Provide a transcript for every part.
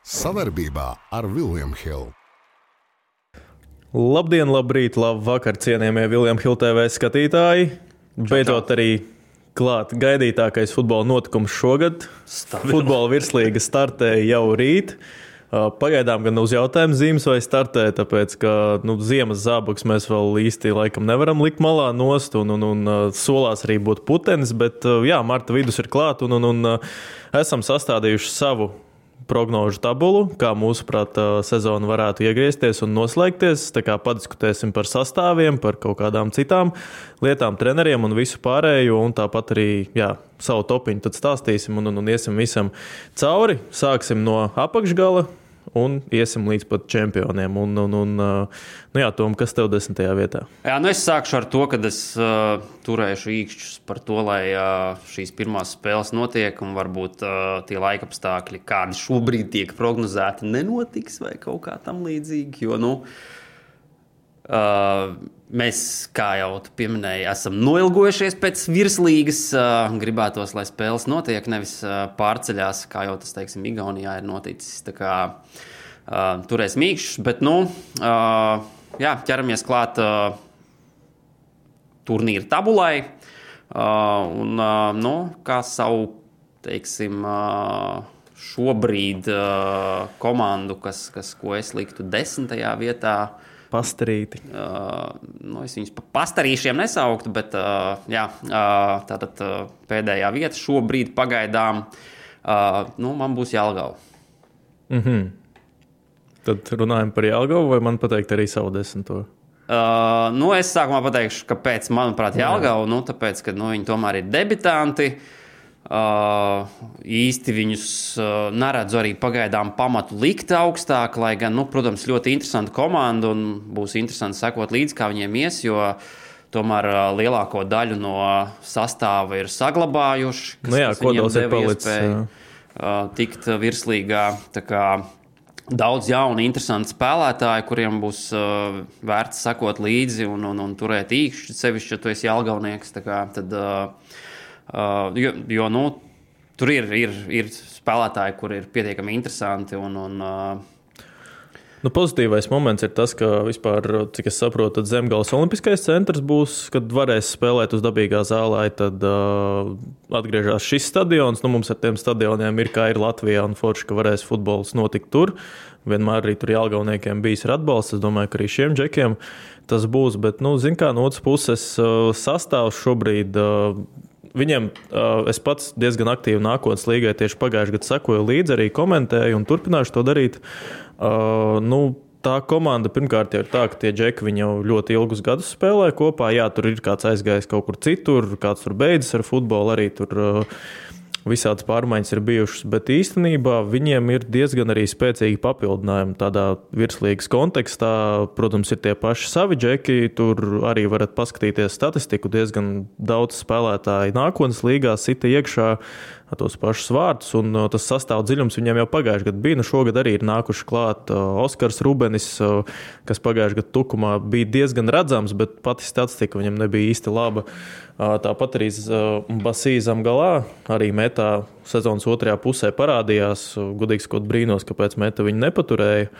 Savarbībā ar William Hill. Labdien, labrīt, labvakar, cienījamie William Hill TV skatītāji. Beidzot arī klāt gaidītākais futbola notikums šogad. Futbola virslīga startēja jau rīt. Pagaidām gan uz jautājumu zīmes vai startē, tāpēc, ka ziemas zābakus mēs vēl īsti laikam nevaram likt malā nost un solās arī būt putenis, bet jā, marta vidus ir klāt un esam sastādījuši savu prognožu tabulu, kā mūsuprāt sezona varētu iegriezties un noslēgties. Tā kā padiskutēsim par sastāviem, par kaut kādām citām lietām, treneriem un visu pārējo, un tāpat arī savu topiņu tad stāstīsim un iesim visam cauri. Sāksim no apakšgala un iesim līdz pat čempioniem. Tom, kas tev 10. vietā? Jā, es sākšu ar to, ka es turēšu īkšķus par to, lai šīs pirmās spēles notiek un varbūt tie laikapstākļi, kādi šobrīd tiek prognozēti, nenotiks vai kaut kā tam līdzīgi, jo, mēs, kā jau tu pieminēji, esam noilgojušies pēc virslīgas. Gribētos, lai spēles notiek, nevis pārceļās, kā jau tas, teiksim, Igaunijā ir noticis. Tā kā turēs mīkšķus, bet, ķeramies klāt turnīra tabulai. Kā savu, teiksim, šobrīd komandu, ko es liktu 10. vietā, Pastarīti. Es viņus pa pastarīšiem nesauktu, bet tātad pēdējā vieta šobrīd pagaidām man būs Jelgava. Tad runājam par Jelgavu, vai man pateikt arī savu 10. Es sākumā pateikšu, kāpēc, manuprāt, Jelgava, tāpēc, ka viņi tomēr ir debitanti. Īsti viņus neredzu arī pagaidām pamatu likt augstāk, lai gan, protams, ļoti interesanta komanda un būs interesanti sekot līdzi, kā viņiem ies, jo tomēr lielāko daļu no sastāva ir saglabājuši, kas viņiem deva iespēju tikt virslīgā. Tā kā daudz jaunu, interesantu spēlētāju, kuriem būs vērts sekot līdzi un turēt īkšķi, sevišķi, ja tu esi jelgavnieks, tā kā tad... tur ir spēlētāji, kur ir pietiekami interesanti. Pozitīvais moments ir tas, ka vispār, cik es saprotu, tad Zemgales olimpiskais centrs būs, kad varēs spēlēt uz dabīgā zālē, tad atgriežas šis stadions. Mums ar tiem stadioniem ir, kā ir Latvijā, un forši, ka varēs futbols notikt tur. Vienmēr arī tur jelgavniekiem bijis ir atbalsts. Es domāju, ka arī šiem džekiem tas būs. Bet, no otras puses, sastāvs šobrīd... Viņiem es pats diezgan aktīvi nākotnes līgai tieši pagājušajā gadā sekoju līdzi, arī komentēju un turpināšu to darīt. Tā komanda pirmkārt jau ir tā, ka tie džeki viņi jau ļoti ilgus gadus spēlē kopā. Jā, tur ir kāds aizgājis kaut kur citur, kāds tur beidzas ar futbolu, arī tur visādas pārmaiņas ir bijušas, bet īstenībā viņiem ir diezgan arī spēcīgi papildinājumi tādā virslīgas kontekstā. Protams, ir tie paši savi džeki, tur arī varat paskatīties statistiku, diezgan daudz spēlētāji nākotnes līgā sita iekšā tos pašus vārtus, un tas sastāv dziļums viņiem jau pagājušajā gadā bija. Šogad arī ir nākuši klāt Oskars Rubenis, kas pagājušajā gadā Tukumā bija diezgan redzams, bet pati statistika viņam nebija īsti laba. Tāpat arī Basī Zemgalā arī metā sezonas otrajā pusē parādījās. Gudīgi sakot, brīnos, kāpēc meta viņu nepaturēja.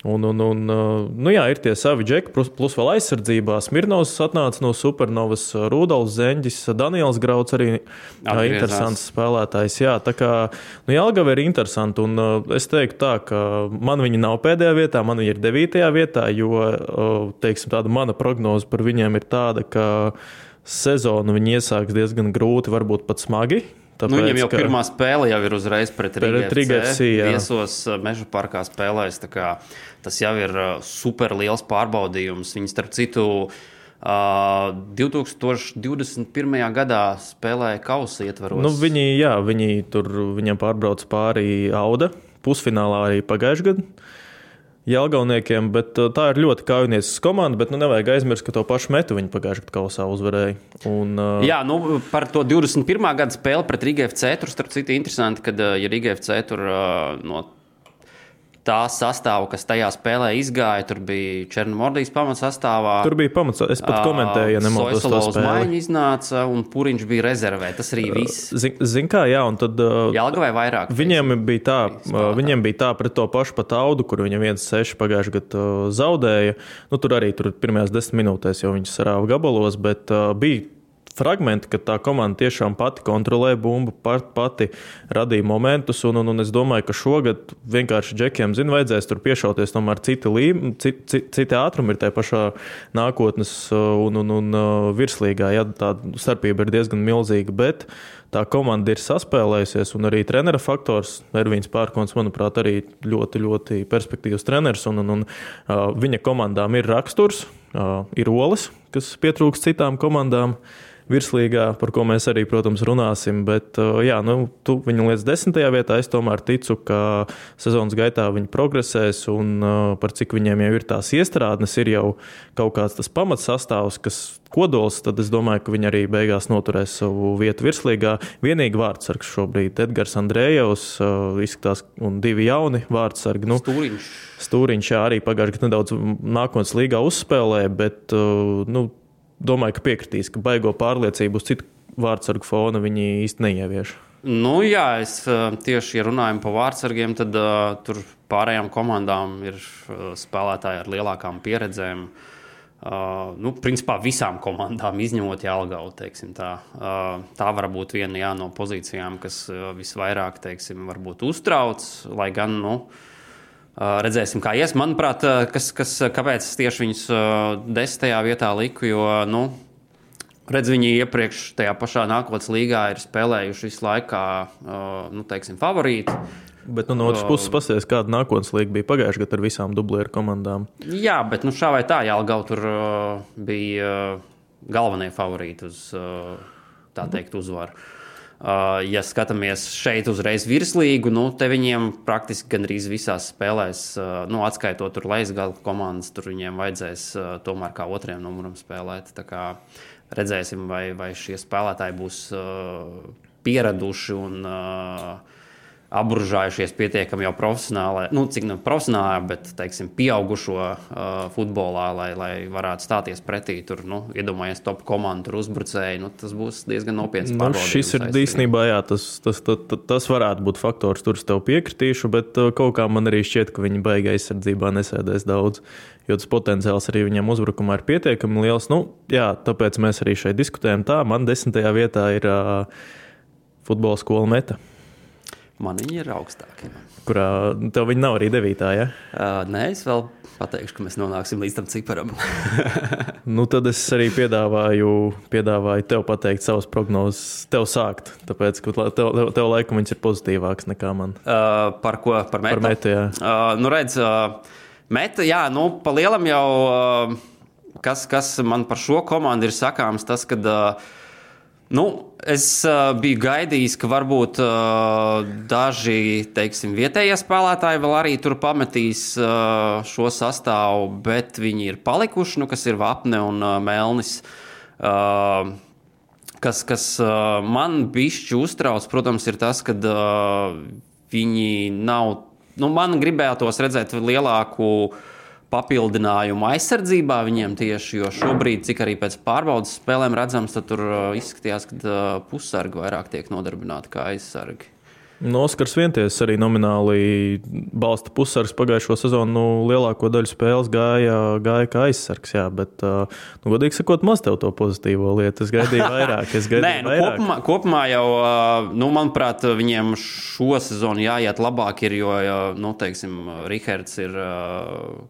Ir tie savi džeki, plus vēl aizsardzībā. Smirnovs atnāca no Supernovas, Rudolfs Zeņģis, Daniels Grauds arī interesants spēlētājs. Jā, tā kā Jelgava ir interesanti, un es teiktu tā, ka man viņi nav pēdējā vietā, man viņi ir 9. vietā, jo, teiksim, tāda mana prognoze par viņiem ir tāda, ka sezonu viņi iesāks diezgan grūti, varbūt pat smagi. Tāpēc, viņam jau pirmā spēle jau ir uzreiz pret Riga FC. Viesos Meža parkā spēlēs. Tas jau ir super liels pārbaudījums. Viņi, starp citu, 2021. gadā spēlēja kausa ietvaros. Viņam pārbrauc pāri Auda pusfinālā arī pagājušajā gadā. Jelgavniekiem, bet tā ir ļoti kaujinieces komanda, bet nevajag aizmirst, ka to pašu metu viņi pagājušajā gadā kausā uzvarēja. Par to 21. gada spēli pret Riga FC tur, starp citu, interesanti, kad Riga FC tur no tā sastāvu, kas tajā spēlē izgāja. Tur bija Černomordijas pamatsastāvā. Tur bija pamats, es pat komentēju, ja nemaldos to spēli. Maiņu iznāca un Puriņš bija rezervē. Tas arī viss. Zin kā, jā, un tad... Jelgavai vairāk. Viņiem bija tā pret to pašu pat Audu, kur viņam 1-6 pagājuši gadu zaudēja. Tur arī pirmajās 10 minūtēs jau viņš sarāva gabalos, bet bija fragmenti, ka tā komanda tiešām pati kontrolē bumbu, pati radīja momentus, un es domāju, ka šogad vienkārši džekiem, vajadzēs tur piešauties tomēr citi ātrumi ir tajā pašā nākotnes un virslīgā, ja tā starpība ir diezgan milzīga, bet tā komanda ir saspēlējusies, un arī trenera faktors, Ervīns Pērkons, manuprāt, arī ļoti, ļoti perspektīvs treneris, un viņa komandām ir raksturs, ir olas, kas pietrūks citām komandām virslīgā, par ko mēs arī, protams, runāsim, bet jā, tu viņu līdz 10. vietā, es tomēr ticu, ka sezonas gaitā viņi progresēs un par cik viņiem jau ir tās iestrādnes, ir jau kaut kāds tas pamats sastāvs, kas kodols, tad es domāju, ka viņi arī beigās noturēs savu vietu virslīgā. Vienīgi vārdsargs šobrīd Edgars Andrējevs izskatās un 2 jauni vārdsargi. Stūriņš arī pagājuši, ka nedaudz nākotnes līgā uzspēlē, bet, domāju, ka piekritīs, ka baigo pārliecību uz citu vārdsargu fona viņi īsti neievieš. Jā, es tieši, ja runājam par vārdsargiem, tad tur pārējām komandām ir spēlētāji ar lielākām pieredzēm. Principā visām komandām izņemot Jelgavu, teiksim tā. Tā var būt viena no pozīcijām, kas visvairāk, teiksim, varbūt uztrauc, lai gan, redzēsim, kā ies. Manuprāt, kāpēc tieši viņus 10. vietā liku, jo, viņi iepriekš tajā pašā nākotnes līgā ir spēlējuši visu laikā, teiksim, favorīti. Bet no otras puses pasies, kāda nākotnes līga bija pagājuši gadu ar visām dublieru komandām. Jā, bet šā vai tā, Jelgava tur bija galvenie favorīti uz, tā teikt, uzvaru. Ja skatāmies šeit uzreiz virslīgu, te viņiem praktiski gandrīz visās spēlēs, atskaitot tur lejas komandas, tur viņiem vajadzēs tomēr kā otriem numuram spēlēt. Tā kā redzēsim, vai šie spēlētāji būs pieraduši un apburžājušies pietiekami jau profesionāli, cik profesionāli, bet, teiksim, pieaugušo futbolā, lai varētu stāties pretī. Tur, iedomājies top komandu, tur uzbrucēji, tas būs diezgan nopietns pārbaudījums. Šis ir īstenībā, jā, tas varētu būt faktors, tur es tev piekritīšu, bet kaut kā man arī šķiet, ka viņi baigi aizsardzībā nesēdēs daudz, jo tas potenciāls arī viņam uzbrukumā ir pietiekami liels. Jā, tāpēc mēs arī šeit diskutējam tā. Man 10. vietā ir futbola skola Meta. Man viņi ir augstākie. Kurā tev viņi nav arī 9. ja? Nē, es vēl pateikšu, ka mēs nonāksim līdz tam ciparam. Tad es arī piedāvāju tev pateikt savas prognozes, tev sākt, tāpēc, ka tev laikam viņas ir pozitīvāks nekā man. Par ko? Par Metu? Par Metu, jā. Redz, Meta, jā, pa lielam jau, kas man par šo komandu ir sakāms, tas, kad es biju gaidījis, ka varbūt daži, teiksim, vietējie spēlētāji vēl arī tur pametīs šo sastāvu, bet viņi ir palikuši, kas ir Vapne un Melnis. Kas man bišķi uztrauc, protams, ir tas, ka viņi nav, man gribētos redzēt lielāku papildinājumu aizsardzībā viņiem tieši, jo šobrīd, cik arī pēc pārbaudas spēlēm redzams, tad tur izskatījās, ka pussargi vairāk tiek nodarbināti kā aizsargi. Oskars Vienties arī nomināli balsta pussargs pagājušo sezonu, lielāko daļu spēles gāja kā aizsargs, jā, bet, godīgi sakot, maz tev to pozitīvo lietu. Es gaidīju vairāk. Nē, kopumā jau, manuprāt, viņiem šo sezonu jāiet labāk ir, jo, teiksim, Rihards ir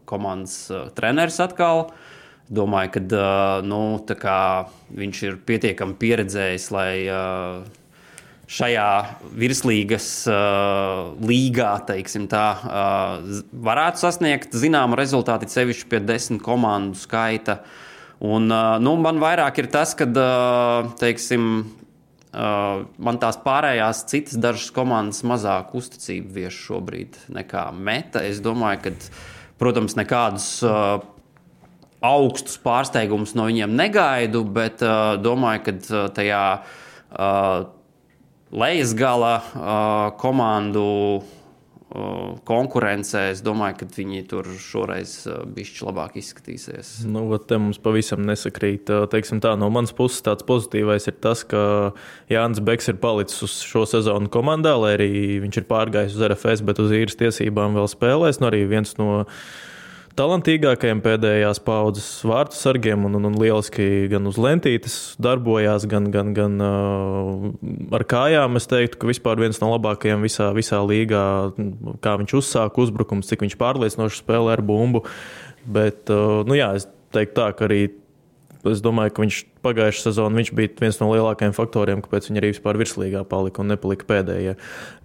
komandas treneris atkal. Domāju, ka, viņš ir pietiekami pieredzējis, lai šajā virslīgas līgā, teiksim tā, varētu sasniegt zināmu rezultātu, sevišķi pie 10 komandu skaita. Un, man vairāk ir tas, ka, teiksim, man tās pārējās citas dažas komandas mazāk uzticību vieš šobrīd nekā Meta. Es domāju, ka, protams, nekādus augstus pārsteigumus no viņiem negaidu, bet domāju, ka tajā lejas gala komandu konkurencē, es domāju, ka viņi tur šoreiz bišķi labāk izskatīsies. Nu, te mums pavisam nesakrīt. Teiksim tā, no manas puses tāds pozitīvais ir tas, ka Jānis Beks ir palicis uz šo sezonu komandā, lai arī viņš ir pārgājis uz RFS, bet uz īres tiesībām vēl spēlēs. Nu, arī viens no talantīgākajiem pēdējās paudzes vārtu sargiem un lieliski gan uz lentītes darbojās, gan ar kājām. Es teiktu, ka vispār viens no labākajiem visā līgā, kā viņš uzsāka uzbrukums, cik viņš pārliecinoši spēlē ar bumbu. Bet, es teiktu tā, ka arī es domāju, ka viņš pagājušā sezonā viņš bija viens no lielākajiem faktoriem, kāpēc viņi arī vispār virslīgā palika un nepalika pēdējie.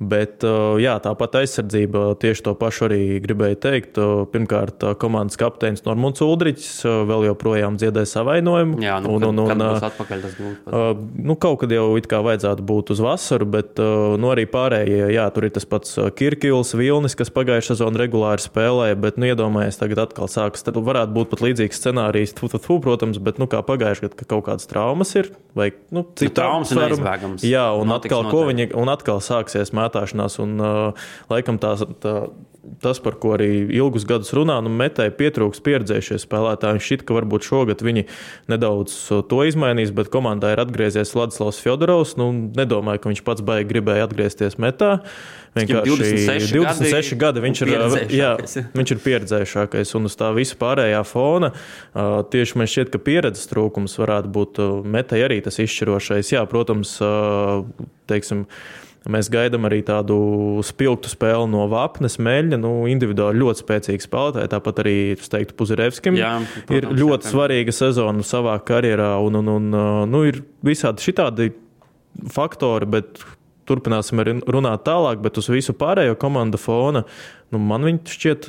Bet tāpat aizsardzība tieši to pašu arī gribēju teikt. Pirmkārt, komandas kapteinis Normunds Uldriķis vēl joprojām dziedē savainojumu. Jā, kad būs atpakaļ tas būtu? Kaut kad jau it kā vajadzētu būt uz vasaru, bet arī pārējie, tur ir tas pats Kirkils, Vilnis, kas pagājušā sezonā regulāri spēlēja, bet iedomājies, tagad atkal sākas. Tad varētu būt pat līdzīgs scenārijs, protams, bet kā pagājušajā gadā, ka kaut kādas traumas ir, vai traumas ir neizbēgams. Jā, un atkal sāksies mētāšanās, un laikam tas, par ko arī ilgus gadus runā, Metēji pietrūks pieredzējušie spēlētāji. Šķiet, ka varbūt šogad viņi nedaudz to izmainīs, bet komandā ir atgriezies Vladislavs Fjodorovs. Nedomāju, ka viņš pats baigi gribēja atgriezties Metā. Vienkārši 26 gadi viņš ir pieredzējušākais, un uz tā visa pārējā fona tieši man šķiet, ka pieredzes trūkums varētu būt Metēji arī tas izšķirošais. Jā, protams, mēs gaidām arī tādu spilgtu spēli no Vapnes, Meļņa, individuāli ļoti spēcīgi spēlētāji, tāpat arī, es teiktu, Puzirevskim ir ļoti svarīga sezona savā karjerā, un ir visādi šitādi faktori, bet turpināsim arī runāt tālāk, bet uz visu pārējo komandu fona, man viņi šķiet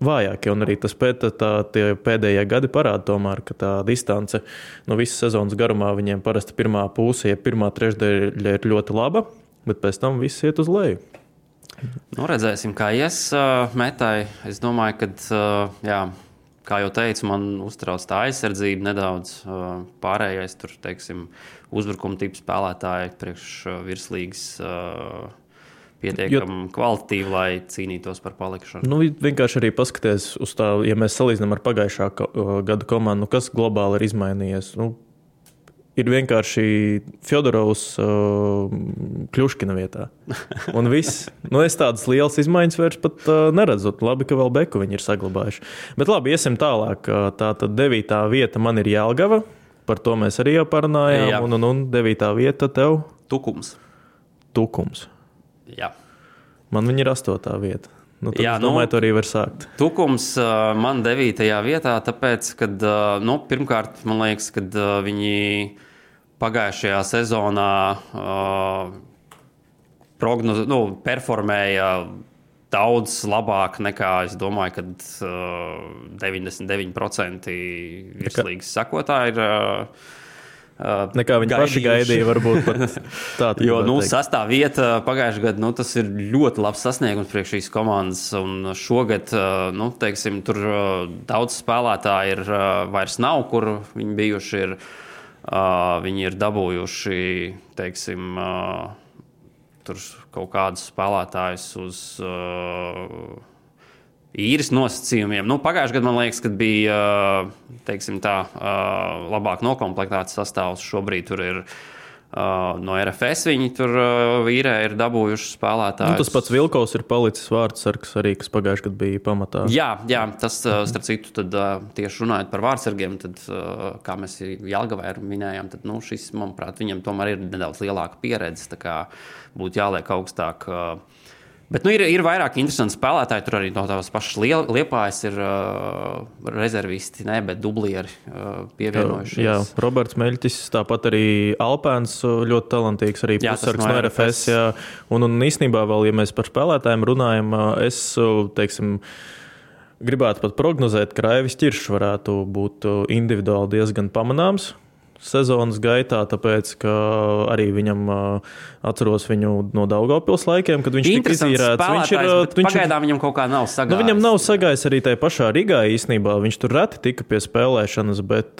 vājākie, un arī tas tie pēdējie gadi parāda tomēr, ka tā distance visas sezonas garumā viņiem parasti pirmā puse, ja pirmā trešdaļa ir ļoti laba, bet pēc tam viss iet uz leju. Redzēsim, kā ies Metai. Es domāju, ka, kā jau teicu, man uztrauc tā aizsardzība nedaudz. Pārējais tur, uzbrukuma tipu spēlētāji priekš virslīgas pietiekami kvalitatīvi, lai cīnītos par palikšanu. Vienkārši arī paskaties uz tā, ja mēs salīdzinām ar pagājušā gada komandu, kas globāli ir izmainījies. Ir vienkārši Fjodorovs Kļuškina vietā. Un viss. Es tādas lielas izmaiņas vairs pat neredzu. Labi, ka vēl Beku viņi ir saglabājuši. Bet labi, iesim tālāk. Tātad 9. vieta man ir Jelgava. Par to mēs arī jau parunājām. Un 9. vieta tev? Tukums. Jā. Man viņi ir 8. vieta. Es domāju, to arī var sākt. Tukums man 9. vietā, tāpēc, kad, pirmkārt, man liekas, kad viņi pagājušajā sezonā performēja daudz labāk nekā, es domāju, kad 99% virslīgas sakotāji ir nekā viņi paši gaidīja, varbūt pat tā. Jo, 6. vieta pagājušajā gadā, tas ir ļoti labs sasniegums priekš šīs komandas, un šogad, tur daudz spēlētāji ir vairs nav, kur viņi bijuši ir, viņi ir dabūjuši, tur kaut kādus spēlētājus uz īres nosacījumiem. Pagājušajā gadā, man liekas, kad bija labāk nokomplektēts sastāvs. Šobrīd tur ir no RFS viņi tur īrē ir dabūjuši spēlētājus. Tas pats Vilkovs ir palicis vārdsargs arī, kas pagājušajā gadā bija pamatā. Jā, tas, starp citu, tad tieši runājot par vārdsargiem, tad, kā mēs Jelgavai minējām, tad, šis, manuprāt, viņam tomēr ir nedaudz lielāka pieredze, tā kā būtu jāliek augstāk. Bet ir vairāk interesanti spēlētāji. Tur arī no tās pašas Liepājas ir rezervisti, bet dublieri pievienojušies. Jā, Roberts Meļķis, tāpat arī Alpēns ļoti talantīgs, arī pussargs no RFS. Jā. Un īstenībā vēl, ja mēs par spēlētājiem runājam, es, gribētu pat prognozēt, ka Raivis Ķiršs varētu būt individuāli diezgan pamanāms sezonas gaitā, tāpēc, ka arī viņam atceros viņu no Daugavpils laikiem, kad viņš tika izīrēts. Pagaidām viņam kaut kā nav sagājis. Viņam nav sagājis arī tajā pašā Rīgā īstenībā. Viņš tur reti tika pie spēlēšanas, bet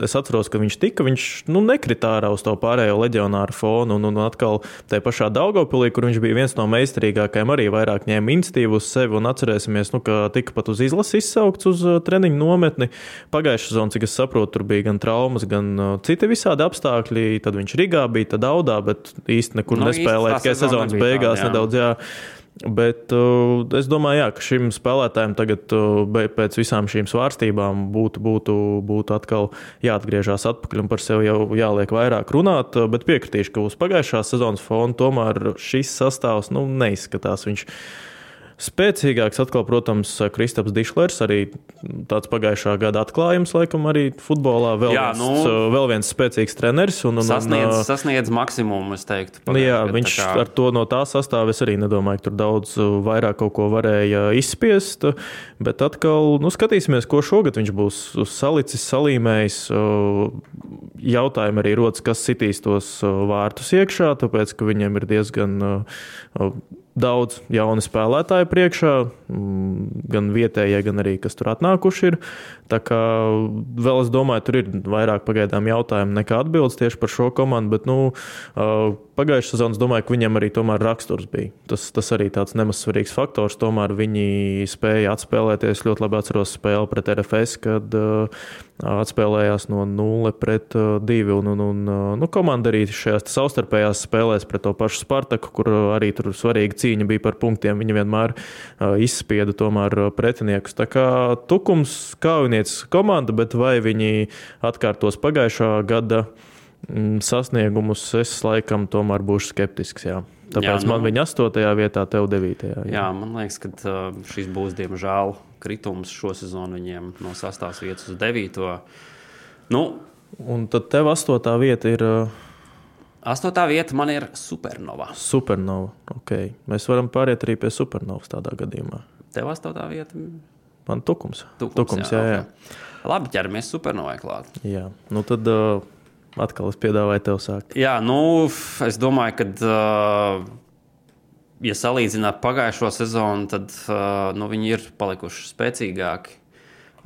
es atceros, ka viņš nekritā ārā uz to pārējo leģionāru fonu. Un atkal tajā pašā Daugavpilī, kur viņš bija viens no meistarīgākajiem, arī vairāk ņēma iniciatīvu uz sevi. Un atcerēsimies, ka tika pat uz izlasi izsaukts uz treniņu nometni. Pagājušā sezona, cik es saprotu, tur bija gan traumas, gan citi visādi apstākļi. Tad viņš Rīgā bija, tad Daudā, bet īsti nekur nespēlēja. Tikai sezonas beigās nedaudz, jā. Bet es domāju, ka šim spēlētājiem tagad pēc visām šīm svārstībām būtu atkal jāatgriežās atpakaļ un par sevi jau jāliek vairāk runāt. Bet piekritīšu, ka uz pagājušās sezonas fona tomēr šis sastāvs neizskatās. Viņš spēcīgāks atkal, protams, Kristaps Dišlers, arī tāds pagājušā gada atklājums, laikam, arī futbolā. Vēl viens spēcīgs treneris. Sasniedz maksimumu, es teiktu. Jā, viņš ar to no tā sastāva, es arī nedomāju, ka tur daudz vairāk kaut ko varēja izspiest, bet atkal, skatīsimies, ko šogad viņš būs salicis, salīmējis. Jautājumi arī rodas, kas sitīs tos vārtus iekšā, tāpēc, ka viņiem ir diezgan daudz jauni spēlētāji priekšā, gan vietējie, gan arī, kas tur atnākuši ir. Tā kā vēl es domāju, tur ir vairāk pagaidām jautājumu nekā atbildes tieši par šo komandu, bet pagājušā sezonas domāju, ka viņam arī tomēr raksturs bija. Tas arī tāds nemaz svarīgs faktors. Tomēr viņi spēja atspēlēties. Ļoti labi atceros spēli pret RFS, kad atspēlējās no 0-2. Un komanda arī šajās savstarpējās spēlēs pret to pašu Spartaku, kur arī tur svarīga cīņa bija par punktiem. Viņi vienmēr izspieda tomēr pretiniekus. Tā kā Tukums kaujinieces komanda, bet vai viņi atkārtos pagājušā gada sasniegumus, es laikam tomēr būšu skeptisks. Jā. Tāpēc man viņa 8. vietā, tev 9. Jā, man liekas, ka šis būs diemžēl kritums šo sezonu viņiem no 6. vietas uz 9. Un tad tev 8. vieta ir... 8. vieta man ir Supernova. Supernova, ok. Mēs varam pāriet arī pie Supernovas tādā gadījumā. Tev 8. vieta? Man Tukums, jā. Okay. Labi, ķeramies Supernovai klāt. Jā, tad... Atkal es piedāvāju tev sākt. Jā, es domāju, ka, ja salīdzināt pagājušo sezonu, tad viņi ir palikuši spēcīgāki.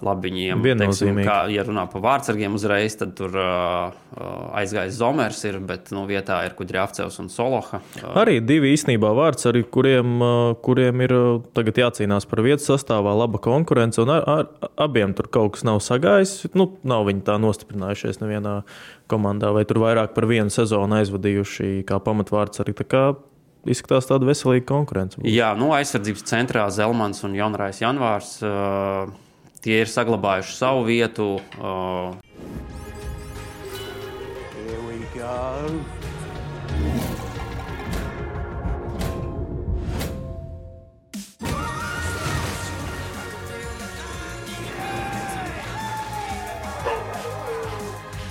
Labi, viņiem, teiksim, ja runā par vārdsargiem uzreiz, tad tur aizgājis Zomers, bet vietā ir Kudrjavcevs un Soloha. Arī divi īstenībā vārdsargi, kuriem ir tagad jācīnās par vietu sastāvā, laba konkurence, un abiem tur kaut kas nav sagājis. Nav viņi tā nostiprinājušies nevienā komandā, vai tur vairāk par vienu sezonu aizvadījuši kā pamatvārdsargi. Tā kā izskatās tāda veselīga konkurence. Jā, aizsardzības centrā Zelmans un Jonrais Janvārs. Tie ir saglabājuši savu vietu. Here we go.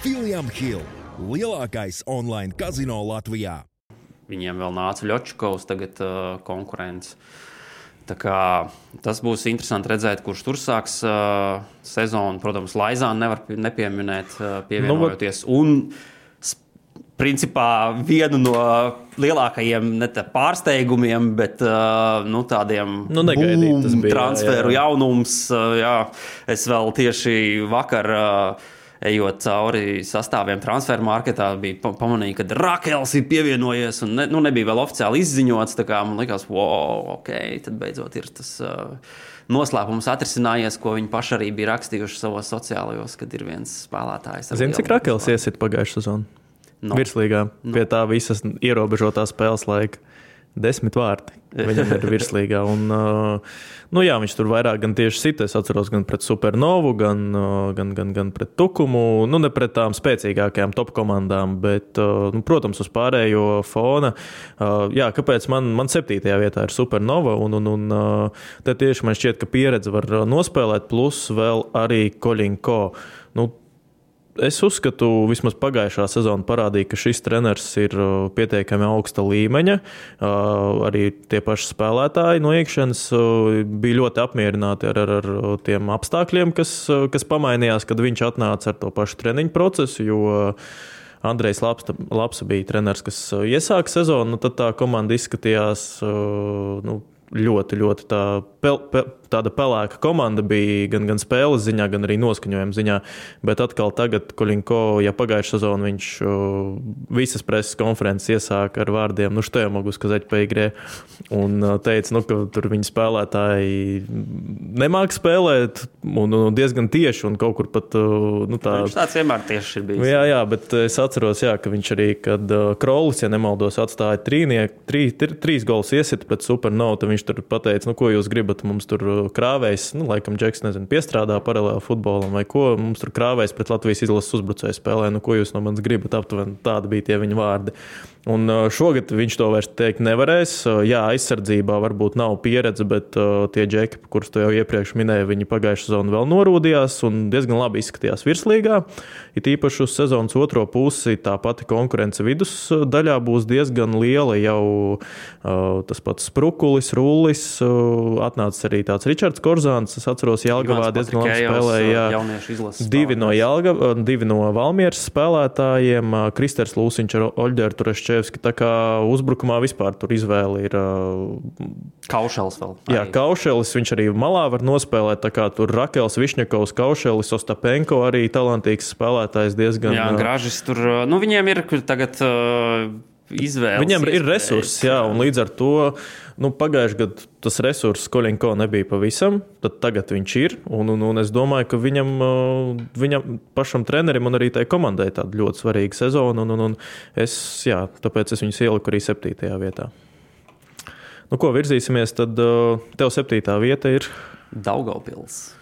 William Hill, lielākais online kazino Latvijā. Viņiem vēl nāca Ļočkovs tagad konkurence. Tā kā tas būs interesanti redzēt, kurš tur sāks sezonu. Protams, Laizānu nevar nepieminēt, pievienojoties. Un, principā, vienu no lielākajiem ne pārsteigumiem, bet tādiem transferu jaunums. Jā, es vēl tieši vakar... Ejot cauri sastāviem transferu marketā, bija pamanīju, ka Rakels ir pievienojies un nebija vēl oficiāli izziņots. Tā kā man likās, ok, tad beidzot ir tas noslēpums atrisinājies, ko viņi paši arī bija rakstījuši savos sociālajos, kad ir viens spēlētājs. Zini, cik Rakels iesit pagājušā sezonu? Virslīgā, pie tā visas ierobežotā spēles laika. 10 vārti viņam ir virslīgā. Un, viņš tur vairāk gan tieši sita. Es atceros gan pret Supernovu, gan pret Tukumu. Ne pret tām spēcīgākajām top komandām, bet, protams, uz pārējo fona. Kāpēc man 7. vietā ir Supernova? Un te tieši man šķiet, ka pieredze var nospēlēt, plus vēl arī Koļinko. Es uzskatu, vismaz pagājušā sezona parādīja, ka šis treneris ir pietiekami augsta līmeņa. Arī tie paši spēlētāji no iekšienes bija ļoti apmierināti ar tiem apstākļiem, kas pamainījās, kad viņš atnāca ar to pašu treniņu procesu, jo Andrejs Lapsa bija treneris, kas iesāka sezonu, tad tā komanda izskatījās ļoti tāda pelēka komanda bija gan spēles ziņā, gan arī noskaņojuma ziņā. Bet atkal tagad Koļinko, ja pagājušā sezona viņš visas preses konferences iesāka ar vārdiem, что я могу сказать по игре, un teica, ka tur viņi spēlētāji nemāk spēlēt, un diezgan tieši, un kaut kur pat tā. Viņš tāds vienmēr tieši ir bijis. Jā, bet es atceros, ka viņš arī, kad Krolis, ja nemaldos, atstāja trīs gols iesit pret Supernova, tad viņš tur pateica, ko jūs gribat, mums tur krāvējs, laikam Džeks, piestrādā paralēli futbolam vai ko, mums tur krāvējs pret Latvijas izlases uzbrucēju spēlē, ko jūs no manis gribat, aptuveni tādi bija tie viņa vārdi. Un šogad viņš to vairs teikt nevarēs. Jā, aizsardzībā varbūt nav pieredze, bet tie džeki, kurus tu jau iepriekš minēji, viņi pagājušā sezonu vēl norūdījās un diezgan labi izskatījās virslīgā. It īpaši uz sezonas otro pusi tā pati konkurence vidusdaļā būs diezgan liela. Jau tas pats Sprukulis, Rullis, atnācis arī tāds Ričards Korzāns. Es atceros, Jelgavā diezgan labi spēlēja. Divi no Valmieras spēlētājiem, Kristers Lūsiņš ar Oļģeru Turešķevski. Tā kā uzbrukumā vispār tur izvēle ir... Kaušelis vēl. Jā, Kaušelis, viņš arī malā var nospēlēt, tā kā tur Rakels, Višņakovs, Kaušelis, Ostapenko arī talantīgs spēlētājs diezgan... Jā, Gražis tur, viņiem ir tagad izvēles. Viņiem ir resursi, jā, un līdz ar to, pagājuši gadu tas resurss Koļinko nebija pavisam, tad tagad viņš ir, un es domāju, ka viņam pašam trenerim un arī tai komandai tāda ļoti svarīga sezona, un tāpēc es viņus ieliku arī 7. vietā. Ko virzīsimies, tad tev 7. vieta ir? Daugavpils.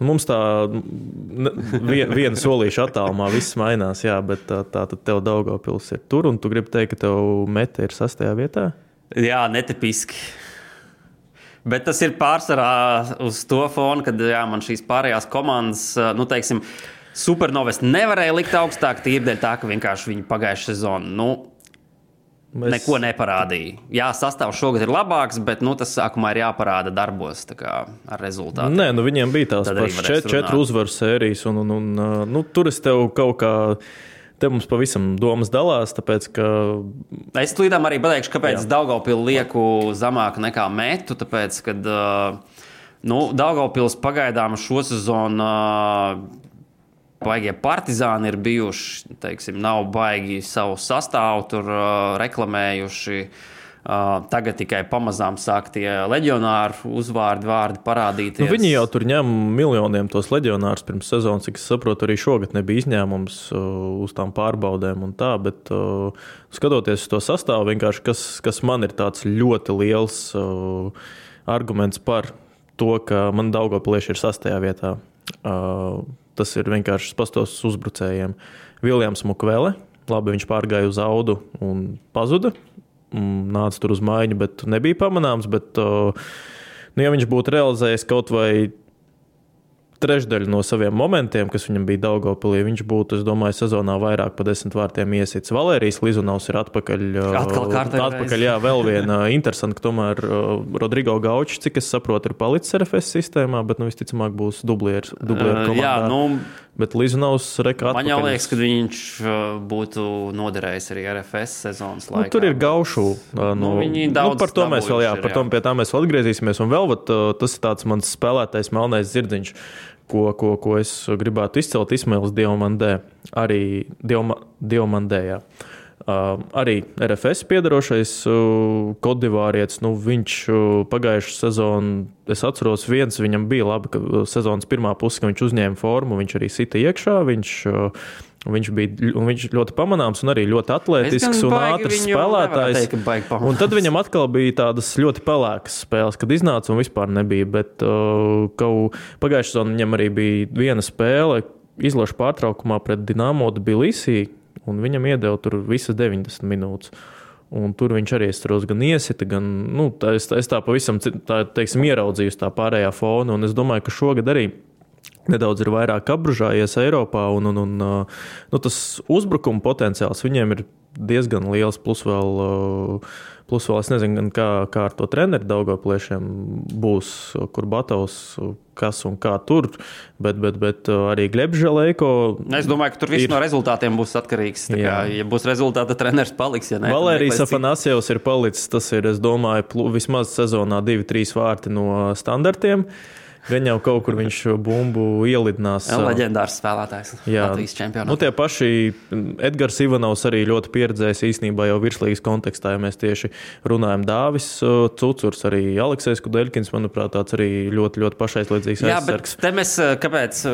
Mums tā viena solīša attālumā viss mainās, jā, bet tā tad tev Daugavpils ir tur, un tu gribi teikt, ka tev Mete ir 6. vietā? Jā, netipiski. Bet tas ir pārsvarā uz to fonu, kad man šīs pārējās komandas, teiksim, Supernovas nevarēja likt augstāk, tīrdēļ tā, ka vienkārši viņi pagājušā sezonu, neko neparādīja. Jā, sastāvs šogad ir labāks, bet tas sākumā ir jāparāda darbos ar rezultātu. Nē, viņiem bija tās pašas 4 uzvaru sērijas, un tur es tev kaut kā, te mums pavisam domas dalās, tāpēc, ka... Es tulīdām arī pateikšu, kāpēc Daugavpilu lieku zamāk nekā Metu, tāpēc, kad Daugavpils pagaidām šo sezonu baigie partizāni ir bijuši, teiksim, nav baigi savu sastāvu tur reklamējuši. Tagad tikai pamazām sāk tie leģionāru vārdi parādīties. Viņi jau tur ņem miljoniem tos leģionārus pirms sezonas, cik es saprotu, arī šogad nebija izņēmums uz tām pārbaudēm un tā, bet skatoties uz to sastāvu, vienkārši kas man ir tāds ļoti liels arguments par to, ka man Daugavpilieši ir 6. vietā. Tas ir vienkārši pastos uzbrucējiem. Viljams Mukvele, labi, viņš pārgāja uz Audu un pazuda. Nāca tur uz maiņu, bet nebija pamanāms. Bet, ja viņš būtu realizējis kaut vai trešdaļu no saviem momentiem, kas viņam bija Daugavpilī, viņš būtu, es domāju, sezonā vairāk pa 10 vārtiem iesits. Valērijas Lizunovs ir atpakaļ. Jā, vēl viena interesanta, ka tomēr Rodrigo Gaučs, cik es saprotu, ir palicis RFS sistēmā, bet visticamāk būs dublieru komandā. Jā, bet Lizunovs reka atpakaļ. Man jau liekas, ka viņš būtu noderējis arī RFS sezonas laikā. Tur ir Gaušu. Viņi daudz par to mēs vēl, pie tā mēs vēl atgriezīsimies. Un vēl tas ir tāds mans spēlētais melnais zirdziņš, ko es gribētu izcelt, Ismails Diomandē. Arī Diomandē, jā. Arī RFS piedarošais kodivārietis, viņš pagājušu sezonu, es atceros viņam bija labi, ka sezonas pirmā puse, ka viņš uzņēma formu, viņš arī sita iekšā, viņš ļoti pamanāms un arī ļoti atletisks un ātrs spēlētājs. Un tad viņam atkal bija tādas ļoti pelēkas spēles, kad iznāca un vispār nebija, bet pagājušā sezonu viņam arī bija viena spēle izlašu pārtraukumā pret Dinamo Tbilisī, un viņam iedeva tur visas 90 minūtes. Un tur viņš arī gan iesita, gan, es tā pavisam, teiksim, ieraudzīju tā pārējā fona, un es domāju, ka šogad arī nedaudz ir vairāk apbružājies Eiropā, un tas uzbrukuma potenciāls viņiem ir diezgan liels, plus vēl es nezinu, gan kā ar to treneri Daugavpiliešiem būs, kur Batovs, kas un kā tur, bet arī Glebs Želejko. Es domāju, ka tur viss no rezultātiem būs atkarīgs. Ja būs rezultāti, tad treneris paliks. Ja ne, Valērijas Afanasjevs ir palicis, tas ir, es domāju, vismaz sezonā 2-3 vārti no standartiem. Gan jau kaut kur viņš bumbu ielidinās. Leģendārs spēlētājs Latvijas čempionātā. Tie paši Edgars Ivanovs arī ļoti pieredzējis īstenībā jau virslīgas kontekstā, ja mēs tieši runājam Dāvis Cucurs, arī Aleksejs Kudeļkins, manuprāt, tāds arī ļoti, ļoti pašaizliedzīgs aizsargs. Jā, bet te mēs kāpēc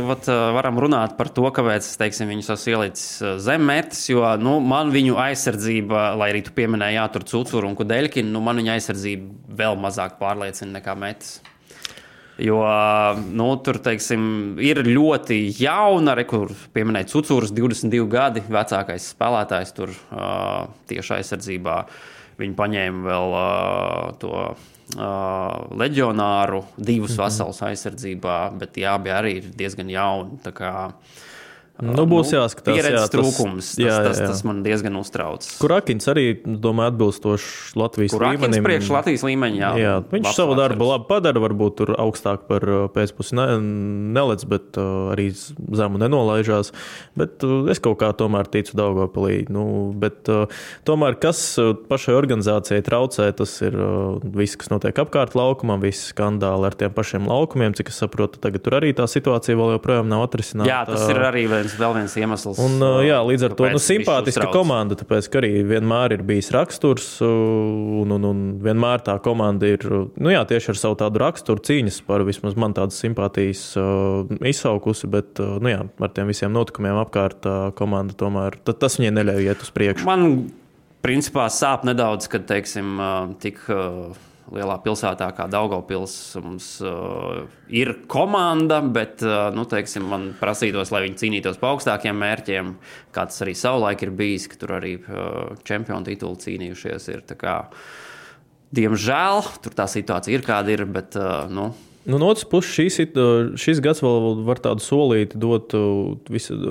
varam runāt par to, kāpēc, teiksim, viņus esmu ielicis zem mērķis, jo, man viņu aizsardzība, lai arī tu pieminēji, tur Cucuru un Kudeļkinu, man viņa aizsardzība vēl mazāk pārliecina nekā mērķis. Jo tur, teiksim, ir ļoti jauna, kur pieminēja Cucurs, 22 gadi, vecākais spēlētājs tur tieši aizsardzībā. Viņi paņēma vēl to leģionāru, 2 veselus aizsardzībā, bet tie abi arī ir diezgan jauni. Tā kā būs jāskatās. Pieredzes trūkums, tas man diezgan uztrauc. Kurakins arī, domāju, atbilstoši Latvijas līmenim. Kurakins priekš Latvijas līmeņa, jā. Viņš savu darbu labi padara, varbūt tur augstāk par pēcpusi nelec, bet arī zemu nenolaižās. Bet es kaut kā tomēr ticu Daugavpilī. Bet tomēr, kas pašai organizācijai traucē, tas ir viss, kas notiek apkārt laukumam, visi skandāli ar tiem pašiem laukumiem, cik es saprotu, tagad tur arī tā situācija vēl joprojām nav atrisināta. Jā, tas ir arī vēl viens iemesls. Un, līdz ar to simpātiska komanda, tāpēc, ka arī vienmēr ir bijis raksturs, un vienmēr tā komanda ir, tieši ar savu tādu raksturu cīņas par vismaz man tādas simpātijas izsaukusi, bet, ar tiem visiem notikumiem apkārt komanda tomēr, tas viņai neļauj iet uz priekšu. Man, principā, sāp nedaudz, kad, teiksim, tik lielā pilsētā kā Daugavpils mums ir komanda, bet, teiksim, man prasītos, lai viņi cīnītos pa augstākiem mērķiem, kā tas arī savulaik ir bijis, ka tur arī čempionu titulu cīnījušies ir. Tā kā, diemžēl, tur tā situācija ir kāda ir, bet, No otras puses, šis gads vēl var tādu solīti dot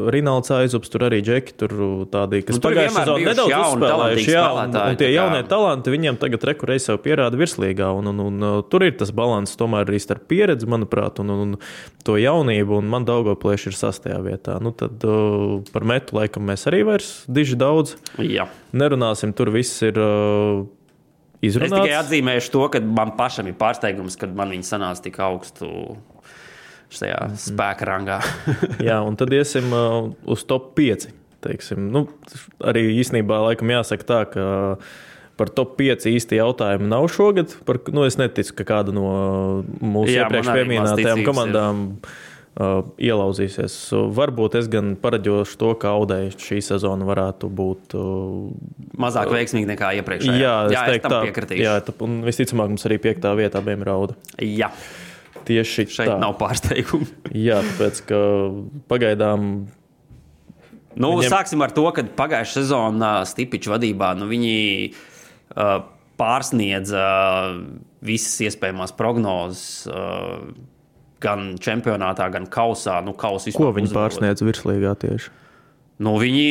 Rinalds Aizups, tur arī Džeki, tur tādi, kas pagājušajā sezonā nedaudz uzspēlējuši, un tie jaunie talanti viņiem tagad rekurēja sev pierāda virslīgā, un tur ir tas balans tomēr arī starp pieredzi, manuprāt, un to jaunību, un man Daugavpilieši ir 6. vietā. Tad par metu laikam mēs arī vairs diži daudz nerunāsim, tur viss ir izrunāts. Es tikai atzīmēšu to, ka man pašam ir pārsteigums, kad man viņi sanāca tik augstu šajā spēka rangā. Jā, un tad iesim uz top 5, teiksim. Arī īstenībā laikam jāsaka tā, ka par top 5 īsti jautājumi nav šogad. Es neticu, ka kāda no mūsu iepriekš pieminētajām komandām ielauzīsies. Varbūt es gan paraģošu to, ka Audai šī sezona varētu būt mazāk veiksmīgi nekā iepriekšējā. Jā, es tam piekritīšu. Jā, un visticamāk mums arī 5. vietā abiem ir Auda. Jā. Tieši šeit tā. Nav pārsteigumu. Jā, tāpēc, ka pagaidām sāksim ar to, ka pagājušā sezonā Stipiča vadībā, viņi pārsniedza visas iespējamās prognozes, gan čempionātā, gan kausā. Ko viņi pārsniedz virslīgā tieši? Viņi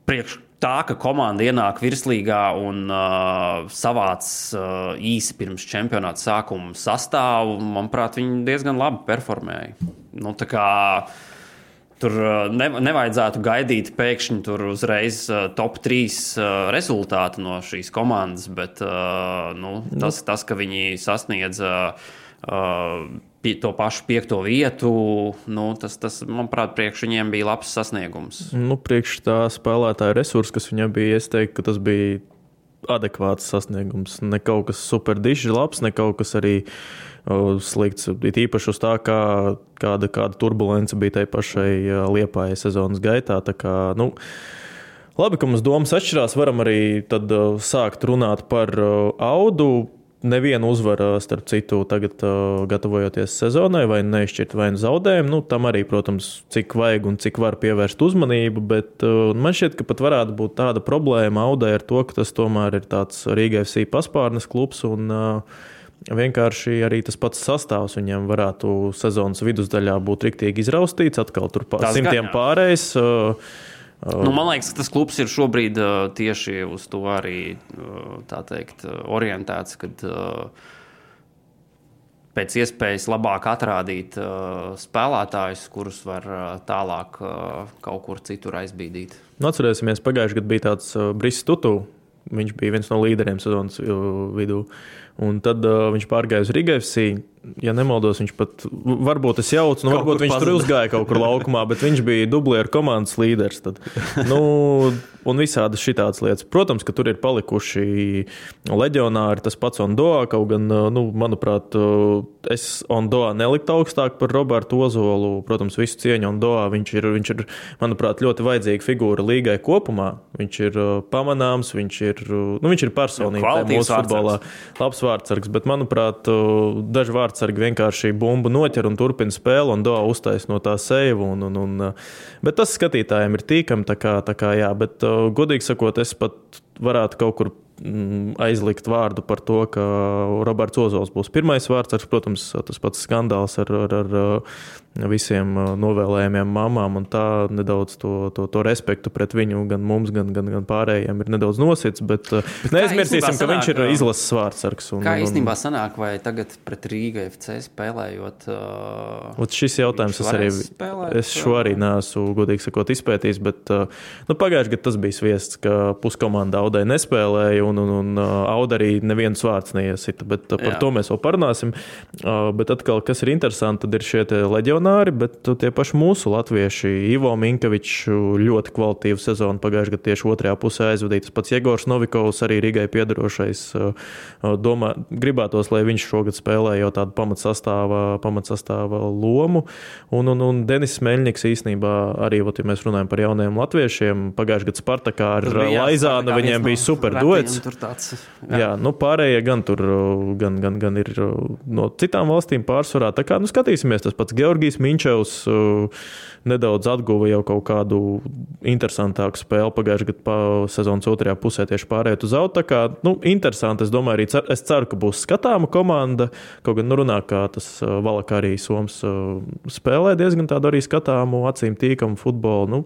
priekš tā, ka komanda ienāk virslīgā un savāc īsi pirms čempionāta sākuma sastāvu, manuprāt, viņi diezgan labi performēja. Tā kā tur nevajadzētu gaidīt pēkšņi tur uzreiz top 3 rezultātu no šīs komandas, bet tas, ka viņi sasniedza to pašu 5. vietu, tas, manuprāt, priekš viņiem bija labs sasniegums. Priekš tā spēlētāja resursi, kas viņam bija, es teiktu, ka tas bija adekvāts sasniegums. Ne kaut kas super dišs labs, ne kaut kas arī slikts. It īpaši uz tā, kāda turbulence bija tai pašai Liepājai sezonas gaitā. Tā kā, labi, ka mums domas atšķirās, varam arī tad sākt runāt par Audu. Nevienu uzvaru, starp citu, tagad gatavojoties sezonai, vai neizšķirt vai zaudējumu. Tam arī, protams, cik vajag un cik var pievērst uzmanību, bet man šķiet, ka pat varētu būt tāda problēma Audai ar to, ka tas tomēr ir tāds Rīga FC paspārnes klubs un vienkārši arī tas pats sastāvs viņam varētu sezonas vidusdaļā būt riktīgi izraustīts, atkal tur simtiem pārējais. Man liekas, ka tas klubs ir šobrīd tieši uz to arī, tā teikt, orientēts, kad pēc iespējas labāk atrādīt spēlētājus, kurus var tālāk kaut kur citur aizbīdīt. Atcerēsimies, pagājuši gadu bija tāds Briss Tutu. Viņš bija viens no līderiem sezonas vidū. Un tad viņš pārgāja uz Riga FC. Ja nemaldos, viņš pat, varbūt es jaucu, varbūt viņš tur uzgāja kaut kur laukumā, bet viņš bija dublieru komandas līderis. Tad. Un visādi šitādas lietas. Protams, ka tur ir palikuši leģionāri, tas pats Ondoa, kaut gan, manuprāt, es Ondoa neliktu augstāk par Robertu Ozolu. Protams, visu cieņu Ondoa. Viņš ir, manuprāt, ļoti vajadzīga figūra līgai kopumā. Viņš ir pamanāms, viņš ir personība mūsu futbolā. Labs vārdsargs, bet, manuprāt, daži vārdsargi vienkārši bumbu noķer un turpina spēli un Doa uztais no tā seivu. Bet tas skatītājiem ir tīkami, tā kā jā, bet godīgi sakot, es pat varētu kaut kur aizlikt vārdu par to, ka Roberts Ozols būs pirmais vārdsargs. Protams, tas pats skandāls ar visiem novēlējumiem mamām un tā nedaudz to respektu pret viņu gan mums, gan pārējiem ir nedaudz nosits, bet neaizmirsīsim, ka viņš ir izlases vārdsargs. Kā īstenībā sanāk, vai tagad pret Rīga FC spēlējot? Šis jautājums es šo arī neesmu, godīgi sakot, izpētījis, bet pagājuši gadu tas bija sviests, ka puskomanda Audai nespēlēja un Auda arī neviens vārds neiesita, bet par to mēs vēl parunāsim. Bet atkal, kas ir interesanti, tad ir šie leģionāri, bet tie paši mūsu latvieši, Ivo Minkevičs ļoti kvalitīvu sezonu pagājuši gadu tieši otrajā pusē aizvadīja. Tas pats Jegors Novikovs, arī Rigai piedarošais, gribētos, lai viņš šogad spēlē jau tādu pamatsastāva lomu. Un Denis Meļņiks īstenībā arī, ja mēs runājam par jaunajiem latviešiem, pagājuši gadu Spartakā ar Laizānu, viņiem bija super duets. Jā, pārējie gan tur gan ir no citām valstīm pārsvarā. Tā kā, skatīsimies, tas pats Georgijs Minčevs nedaudz atguva jau kaut kādu interesantāku spēli pagājušajā gadu sezonas otrajā pusē tieši pārējot uz Audu. Tā kā, interesanti, es domāju, es ceru, ka būs skatāma komanda, kaut gan runā, kā tas Valaka arī Soms spēlē diezgan tādu arī skatāmu, acīm tīkamu futbolu.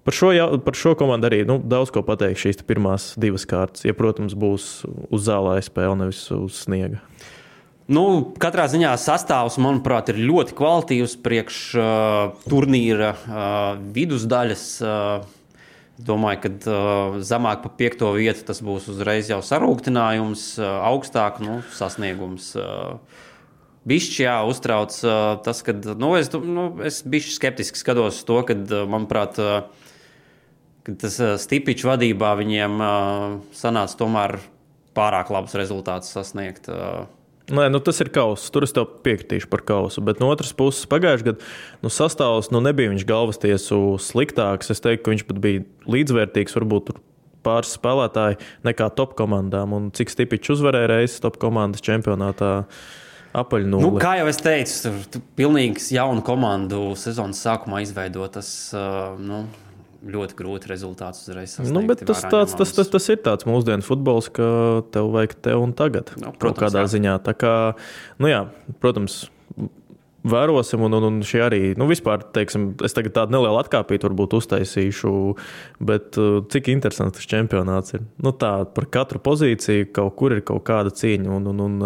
Par šo komandu arī daudz ko pateikt šīs pirmās divas kārtas. Ja, protams, būs uz zālē spēle, nevis uz sniega. Katrā ziņā sastāvs, manuprāt, ir ļoti kvalitīvs priekš turnīra vidusdaļas. Domāju, ka zemāk pa 5. vietu tas būs uzreiz jau sarūktinājums, augstāk sasniegums. Bišķi uztrauc tas, ka es bišķi skeptiski skatos to, kad, manuprāt, kad tas Stipičs vadībā viņiem sanāca tomēr pārāk labus rezultātus sasniegt. Nē, tas ir kauss. Tur es tev piekritīšu par kausu. Bet no otras puses, pagājušajā gadā sastāvs nebija viņš galvastiesu sliktāks. Es teiktu, ka viņš pat bija līdzvērtīgs, varbūt tur pāris spēlētāji nekā top komandām. Un cik Stipičs uzvarēja reizes top komandas čempionātā apaļnulli. Kā jau es teicu, pilnīgs jaunu komandu sezonas sākumā izveidot, tas ļoti grūti rezultātus uzreiz sasniegt. Bet tas ir tāds mūsdienu futbols, ka tev vajag te un tagad. Kaut kādā ziņā. Tā kā, protams, vērosim, un šie arī, vispār, teiksim, es tagad tādu nelielu atkāpītu varbūt uztaisīšu, bet cik interesants tas čempionāts ir. Tā par katru pozīciju kaut kur ir kaut kāda cīņa, un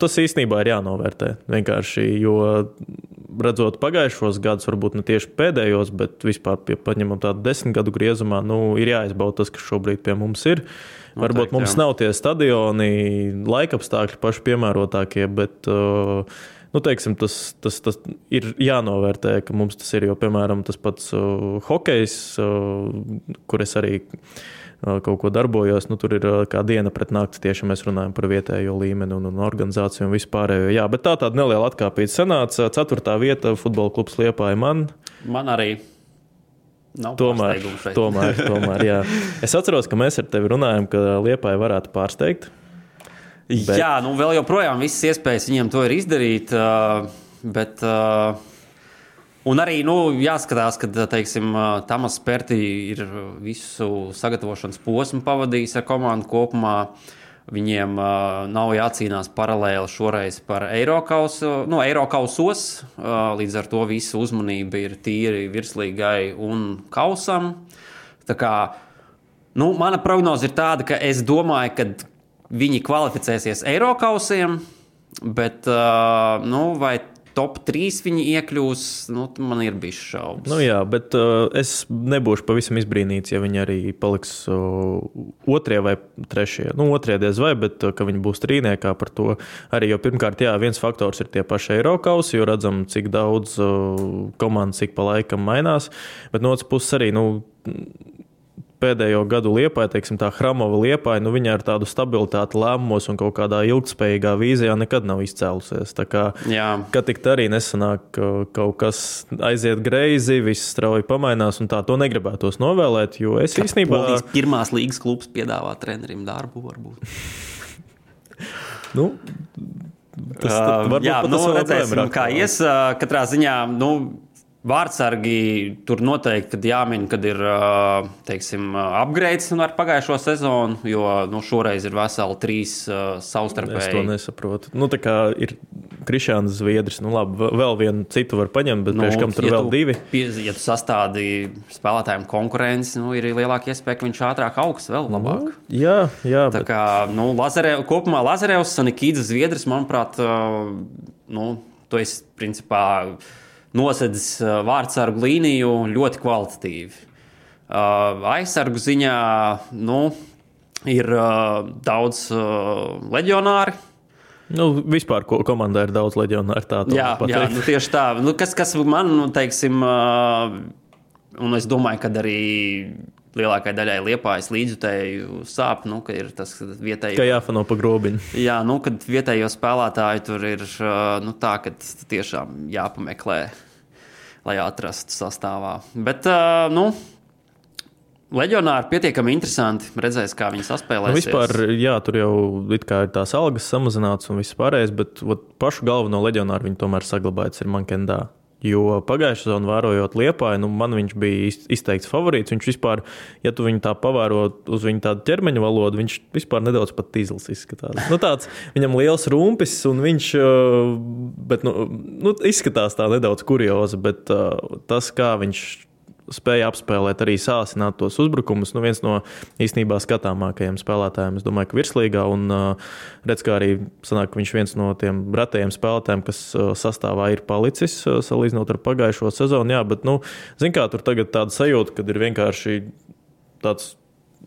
tas īstenībā ir jānovērtē. Vienkārši, jo redzot pagājušos gadus, varbūt ne tieši pēdējos, bet vispār paņemam tādu 10 gadu griezumā, ir jāizbauda tas, kas šobrīd pie mums ir. Varbūt mums nav tie stadioni, laikapstākļi paši piemērotākie, bet teiksim, tas ir jānovērtē, ka mums tas ir, jo, piemēram, tas pats hokejs, kur es arī kaut ko darbojos, tur ir kā diena pret nakti, tieši mēs runājam par vietējo līmeni un organizāciju un vispārējo. Jā, bet tāda neliela atkāpīta sanāca. 4. vieta futbola klubs Liepāja man. Man arī. Tomēr, jā. Es atceros, ka mēs ar tevi runājam, ka Liepāja varētu pārsteigt. Bet... Jā, vēl joprojām visas iespējas viņiem to ir izdarīt, bet... Un arī jāskatās, ka, teiksim, Tamas Perti ir visu sagatavošanas posmu pavadījis ar komandu kopumā. Viņiem nav jācīnās paralēli šoreiz par Eirokausos, līdz ar to visa uzmanība ir tīri virslīgai un kausam. Tā kā, mana prognoze ir tāda, ka es domāju, ka viņi kvalificēsies Eirokausiem, bet vai top 3 viņi iekļūs, man ir bijis šaubas. Jā, bet es nebūšu pavisam izbrīnīts, ja viņi arī paliks 2. vai 3. 2. diez vai, bet ka viņi būs trīniekā par to. Arī jau pirmkārt, viens faktors ir tie paši Eirokausi, jo redzam, cik daudz komandas cik pa laikam mainās, bet no otras puses arī, pēdējo gadu Liepāja, teiksim tā Hramova Liepāja, viņa ar tādu stabilitāti lēmumos un kaut kādā ilgtspējīgā vīzijā nekad nav izcēlusies. Tā kā, kad tik arī nesanāk kaut kas aiziet greizi, viss strauji pamainās un tā to negribētos novēlēt, jo es īstenībā... Polijas pirmās līgas klubs piedāvā trenerim darbu varbūt. Redzēsim, kā ies. Katrā ziņā, vārdsargi tur noteikti, kad jāmin, kad ir, upgrades ar pagājušo sezonu, jo, šoreiz ir veseli 3 savstarpēji. Es to nesaprotu. Tā kā ir Krišjāns Zviedris, labi, vēl vienu citu var paņemt, bet priekš kam tur vēl 2. Ja tu sastādi spēlētājiem konkurenci, ir lielāka iespēja, ka viņš ātrāk augs vēl labāk. Jā. Tā kā, kopumā Lazarevs, Sanikīdis Zviedris, manuprāt, to es, principā, nosedzis vārdsargu līniju ļoti kvalitatīvi. Aizsargu ziņā ir daudz leģionāri. Vispār komandā ir daudz leģionāri. Jā, tieši tā. Kas man, teiksim, un es domāju, ka arī lielākai daļai Liepājas līdzjutēju sāp, ka ir tas vietēji... Ka jāfano pa grobiņu. Jā, kad vietējo spēlētāju tur ir tā, ka tiešām jāpameklē, lai atrastu sastāvā. Bet, leģionāri pietiekami interesanti, redzēs, kā viņi saspēlēsies. Vispār, tur jau it kā ir tās algas samazināts un viss pārējais, bet pašu galveno leģionāru viņi tomēr saglabājas ir Mankendā. Jo pagājušā sezonā vērojot Liepāju, man viņš bija izteikts favorīts. Viņš vispār, ja tu viņu tā pavēro uz viņu tādu ķermeņa valodu, viņš vispār nedaudz pat tīzls izskatās. Tāds, viņam liels rumpis un viņš, bet, izskatās tā nedaudz kuriozi, bet tas, kā viņš spēja apspēlēt, arī sāsināt tos uzbrukumus. Viens no īstenībā skatāmākajiem spēlētājiem, es domāju, ka virslīgā, un redz, kā arī sanāk, ka viņš viens no tiem retajiem spēlētājiem, kas sastāvā ir palicis, salīdzinot ar pagājušo sezonu. Jā, bet, zin kā, tur tagad tāda sajūta, kad ir vienkārši tāds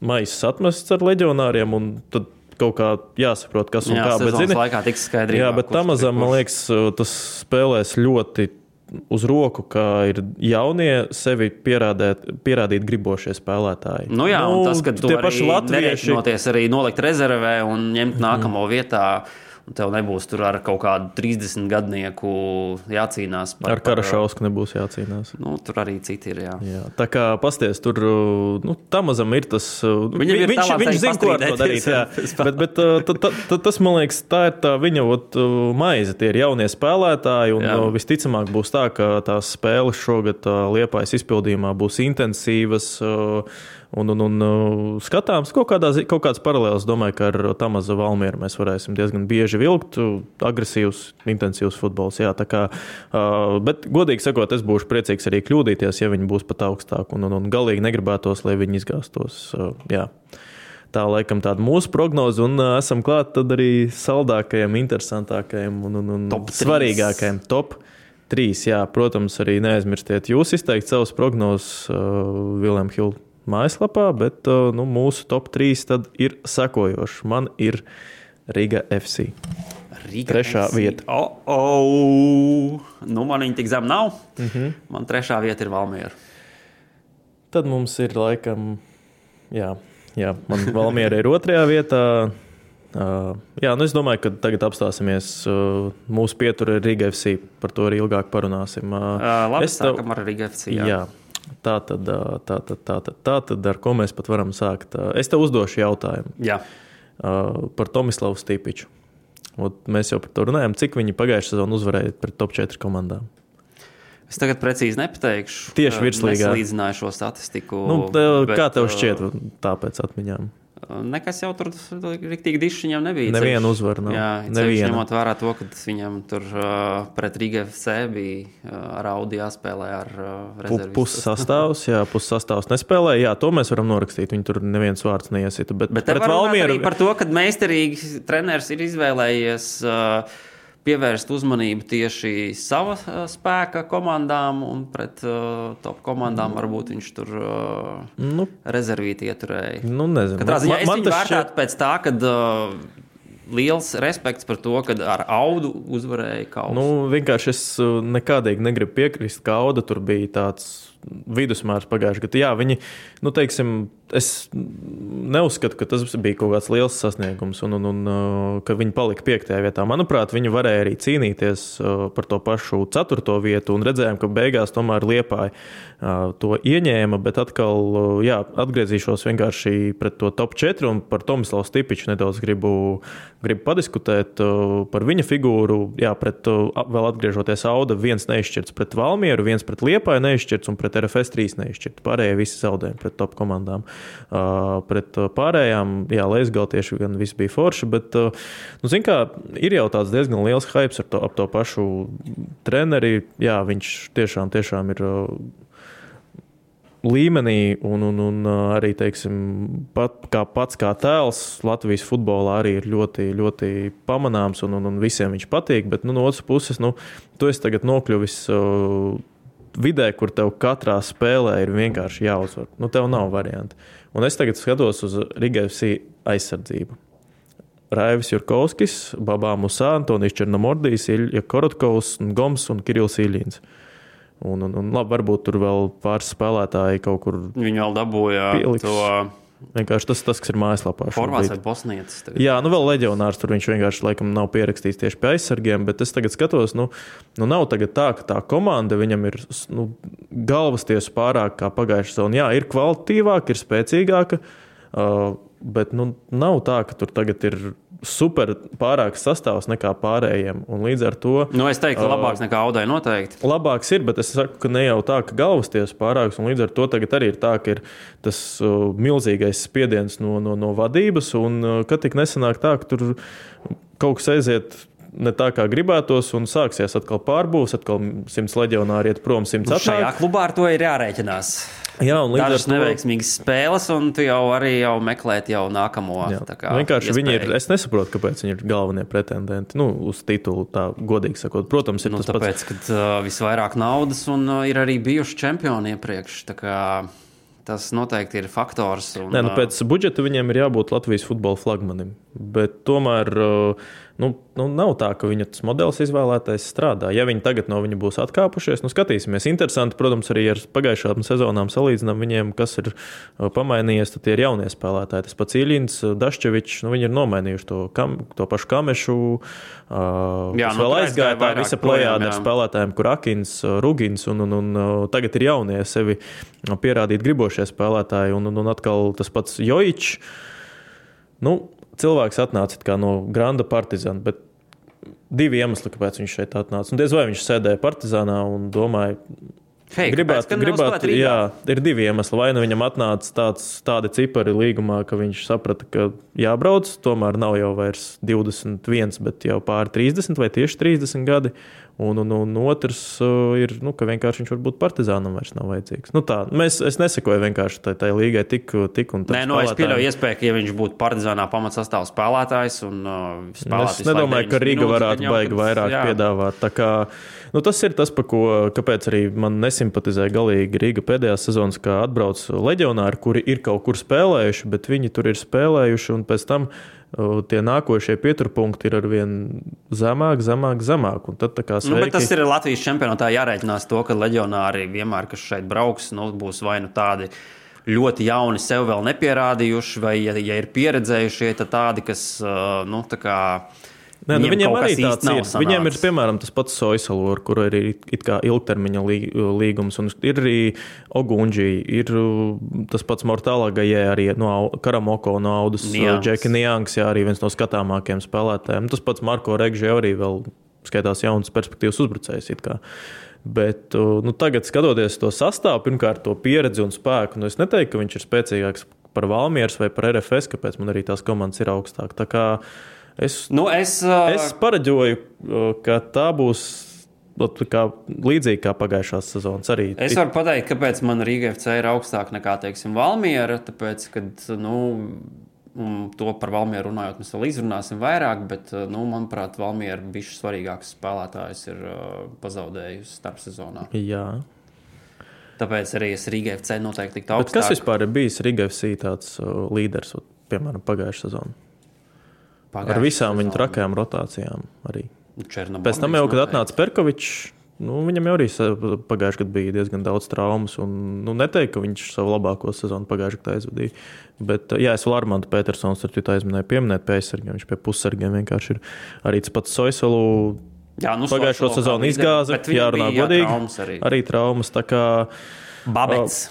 maisis atmests ar leģionāriem, un tad kaut kā jāsaprot, kas un kā. Bet, zini, laikā tiks skaidrībā. Jā, bet Tamazam, man liekas, tas spēlēs ļoti uz roku, ka ir jaunie sevi pierādīt gribošie spēlētāji. Un tas, ka tu arī nerēķinoties arī nolikt rezervē un ņemt nākamo vietā, un tev nebūs tur ar kaut kādu 30 gadnieku jācīnās. Ar Karašausku nebūs jācīnās. Tur arī citi ir, jā. Tā kā pasties, tur, Tamazam ir tas... Viņš zina, ko ar to darīt, jā. Bet tas, man liekas, tā ir tā viņa maize, tie ir jaunie spēlētāji, un visticamāk būs tā, ka tās spēles šogad Liepājas izpildījumā būs intensīvas, un skatāms kaut kāds paralēls, domāju, ka ar Tamaza Valmieru mēs varēsim diezgan bieži vilkt, agresīvs, intensīvs futbols, jā, tā kā, bet godīgi sakot, es būšu priecīgs arī kļūdīties, ja viņi būs pat augstāk, un galīgi negribētos, lai viņi izgāstos, jā. Tā laikam tāda mūsu prognoze, un esam klāt tad arī saldākajiem, interesantākajiem un svarīgākajiem top 3, jā, protams, arī neaizmirstiet jūs izteikt savus prognozes William Hill mājaslapā, bet mūsu top 3 tad ir sekojoši. Man ir Riga FC. Trešā vieta. Man viņa tik zem nav. Man trešā vieta ir Valmiera. Tad mums ir laikam, jā, man Valmiera ir 2. vietā. Es domāju, ka tagad apstāsimies mūsu pietura Riga FC. Par to arī ilgāk parunāsim. Labi, sākam ar Riga FC, jā. Tā tad, ar ko mēs pat varam sākt. Es tev uzdošu jautājumu. Jā. Par Tomislavu Stipiču. Mēs jau par to runājam, cik viņi pagājušajā sezonā uzvarēja pret top 4 komandām. Es tagad precīzi nepateikšu. Tieši virslīgā. Nesalīdzināju šo statistiku. Kā tev šķiet tāpēc atmiņām? Nekas jau tur riktīgi dišs viņam nebija. Nevienu uzvaru nav. Jā, ceļš ņemot vērā to, ka viņam tur pret Riga FC bija ar Audi jāspēlē ar rezervistus. Pussastāvs nespēlēja. Jā, to mēs varam norakstīt. Viņi tur neviens vārds neiesita. Bet te var runāt arī par to, ka meistarīgi treneris ir izvēlējies pievērst uzmanību tieši sava spēka komandām un pret top komandām varbūt viņš tur rezervīti ieturēja. Nezinu. Katrā ziņā es viņu vērtētu pēc tā, kad liels respekts par to, kad ar Audu uzvarēja Kausu. Vienkārši es nekādīgi negribu piekrist, ka Auda tur bija tāds vidusmērs pagājuši gadu. Jā, viņi, teiksim, es neuzskatu, ka tas bija kaut kāds liels sasniegums un ka viņi palika 5. vietā. Manuprāt, viņi varēja arī cīnīties par to pašu 4. vietu un redzējām, ka beigās tomēr Liepāja to ieņēma, bet atkal, atgriezīšos vienkārši pret to top 4 un par Tomislavu Stipiču nedaudz gribu padiskutēt par viņa figūru. Jā, vēl atgriežoties Auda, viens neizšķirts pret Valmieru, viens pret Liepāju neizšķirts un pret RFS 3 neizšķirts. Pārējie visi zaudējumi pret top komandām. Pret pārējām, Leizgal tieši gan viss bija forši, bet, zin kā, ir jau tāds diezgan liels hypes ap to pašu treneri. Jā, viņš tiešām ir līmenī un arī, teiksim, pats kā tēls Latvijas futbolā arī ir ļoti, ļoti pamanāms un visiem viņš patīk, bet, no otras puses, tu esi tagad nokļuvis vidē, kur tev katrā spēlē ir vienkārši jāuzvar. Tev nav varianti. Un es tagad skatos uz Riga FC aizsardzību. Raivis Jurkovskis, Babā Musā, Antonijs Černomordijs, Ilja Korotkovs, Goms un Kirills Iļins. Un labi, varbūt tur vēl pāris spēlētāji kaut kur viņi vēl dabūja pieliks. To vienkārši tas, kas ir mājaslapā. Horvāts vai bosnietis. Jā, vēl leģionārs tur viņš vienkārši laikam nav pierakstīts tieši pie aizsargiem, bet es tagad skatos, nav tagad tā, ka tā komanda viņam ir galvas tiesu pārāk kā pagājušā sezona. Jā, ir kvalitatīvāka, ir spēcīgāka, bet nav tā, ka tur tagad ir super pārāks sastāvs nekā pārējiem. Un līdz ar to... es teiktu, ka labāks nekā Audai noteikti. Labāks ir, bet es saku, ka ne jau tā, ka galvas tiesa pārāks. Un līdz ar to tagad arī ir tā, ka ir tas milzīgais spiediens no vadības. Un kad tik nesanāk tā, ka tur kaut kas aiziet ne tā, kā gribētos, un sāksies atkal pārbūs, atkal 100 leģionāri iet prom, 100 atnāk. Šajā klubā ar to ir jārēķinās. Jā, un līdz ar dažas to neveiksmīgas spēles, un tu jau arī meklēt jau nākamo. Vienkārši viņi ir, es nesaprotu, kāpēc viņi ir galvenie pretendenti, uz titulu, tā godīgi sakot. Protams, ir tas tāpēc, pats. Kad visvairāk naudas un ir arī bijuši čempioni iepriekš, tā kā tas noteikti ir faktors. Un, pēc budžeta viņiem ir jābūt Latvijas futbola flagmanim, bet tomēr nav tā, ka viņa tas modelis izvēlētais strādā. Ja viņi tagad no viņa būs atkāpušies, skatīsimies. Interesanti, protams, arī ar pagājušām sezonām salīdzinām viņiem, kas ir pamainījies, tad tie ir jaunie spēlētāji. Tas pats Iļins, Daščevičs, viņi ir nomainījuši to pašu Kamešu, kas vēl aizgāja tā visa plejāda ar spēlētājiem, kur Akins, Rugins, un tagad ir jaunie sevi pierādīt gribošie spēlētāji, un atkal tas pats Jojičs. Cilvēks atnāca kā no Granda Partizana, bet 2 iemesli, kāpēc viņš šeit atnāca. Un diez vai viņš sēdēja Partizānā un domāja, gribētu, jā, ir 2 iemesli. Vai viņam atnāca tādi cipari līgumā, ka viņš saprata, ka jābrauc, tomēr nav jau vairs 21, bet jau pāri 30 vai tieši 30 gadi. Un otrs ir, ka vienkārši viņš varbūt Partizānam vairs nav vajadzīgs. Es nesekoju vienkārši tai līgai tik un tā. Es pieļauju iespēju, ka ja viņš būtu Partizānā pamatsastāvs spēlētājs un spēlētājs. Es nedomāju, ka Riga varētu baigi vairāk piedāvāt. Tā kā, tas ir tas, kāpēc arī man nesimpatizē galīgi Riga pēdējās sezonas, kā atbrauc leģionāri, kuri ir kaut kur spēlējuši, bet viņi tur ir spēlējuši un pēc tam tie nākošie pieturpunkti ir arvien zemāk. Un tad sveiki. Bet tas ir Latvijas čempionātā jārēķinās to, ka leģionāri vienmēr, kas šeit brauks, būs vai tādi ļoti jauni, sev vēl nepierādījuši, vai ja ir pieredzējušie, tad tādi, kas viņiem arī tāds ir. Viņiem ir, piemēram, tas pats Soisalu, ar kuru ir it kā ilgtermiņa līgums, un ir arī Ogunģī, ir tas pats Mortālā Gajē, arī no Karamoko, no Audas, Džeki Niangs, arī viens no skatāmākiem spēlētājiem. Tas pats Marko Regži arī vēl skaitās jauns perspektīvas uzbrucējs it kā. Bet tagad skatoties to sastāvu, pirmkārt to pieredzi un spēku, es neteiktu, ka viņš ir spēcīgāks par Valmieras vai par RFS, kāpēc man arī tās komandas ir augstāk. Tā kā es pareģoju, ka tā būs līdzīgi kā pagājušās sezonas arī. Es varu pateikt, kāpēc man Rīga FC ir augstāk nekā, teiksim, Valmiera, tāpēc, kad, to par Valmieru runājot, mēs vēl izrunāsim vairāk, bet, manuprāt, Valmiera bišķi svarīgāks spēlētājs ir pazaudējusi starpsezonā. Jā. Tāpēc arī es Rīga FC noteikti tiktu augstāk. Bet kas vispār ir bijis Rīga FC tāds līderis, piemēram, pagājušā sezona? Ar visām viņa trakajām rotācijām arī. Pēc tam jau, kad atnāca Perkovičs, viņam jau arī pagājušajā gadā bija diezgan daudz traumas. Neteiktu, ka viņš savu labāko sezonu pagājušajā gadā aizvadīja. Bet, es vēl Armandu Petersons ar citu aizminēju pieminēt pie aizsargiem. Viņš pie pussargiem vienkārši ir arī tas pats Soiselu. Pagājušo sezonu izgāza, jārunā godīgi. Arī traumas. Tā kā Babets.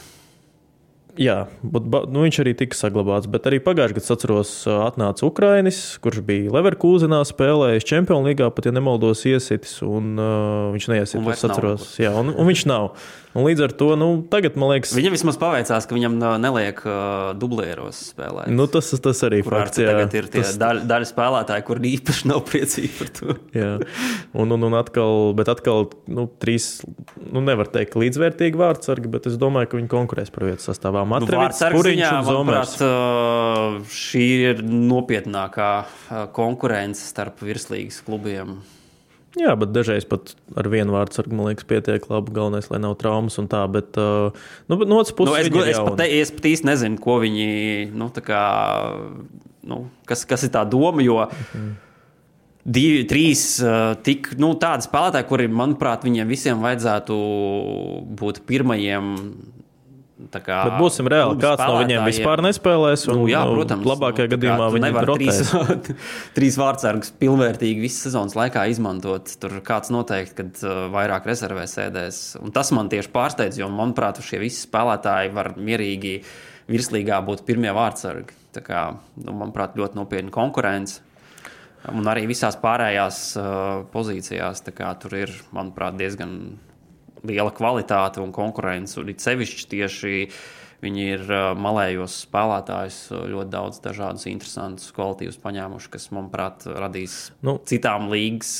Jā, viņš arī tika saglabāts, bet arī pagājušajā gadā, atceros, atnāca Ukrainis, kurš bija Leverkusenā spēlējis Čempionu līgā, pat ja nemaldos iesitis, un viņš neiesitis, es atceros. Jā, un viņš nav. Un līdz ar to, tagad, man liekas... Viņam vismaz paveicās, ka viņam neliek dublieros spēlēt. Tas arī fakts, jā. Tagad ir tie daļa spēlētāji, kur īpaši nav priecīgi par to. Jā, un atkal, trīs, nevar teikt līdzvērtīgi vārdsargi, bet es domāju, ka viņi konkurēs par vietu sastāvā. Matrevits, Puriņš un Zomers. Šī ir nopietnākā konkurence starp virslīgas klubiem. Jā, bet dažreiz pat ar vienu vārdsargu, man liekas, pietiek labi. Galvenais, lai nav traumas un tā, bet no otras puses es pat īsti nezinu, ko viņi, kas ir tā doma, jo trīs tik, tādi spēlētāji, kuri, manuprāt, viņiem visiem vajadzētu būt pirmajiem. Bet būsim reāli, kāds no viņiem vispār nespēlēs. Protams, labākajā gadījumā viņi rotēs. Trīs vārdsargus pilnvērtīgi visas sezonas laikā izmantot. Tur kāds noteikti, kad vairāk rezervē sēdēs. Un tas man tieši pārsteidz, jo, manuprāt, šie visi spēlētāji var mierīgi virslīgā būt pirmie vārdsargi. Tā kā, manuprāt, ļoti nopietna konkurence. Un arī visās pārējās pozīcijās. Tā kā tur ir, manuprāt, diezgan liela kvalitāte un konkurence, un it sevišķi tieši viņi ir malējos spēlētājus ļoti daudz dažādus interesantus kvalitīvus paņēmuši, kas, manuprāt, radīs citām līgas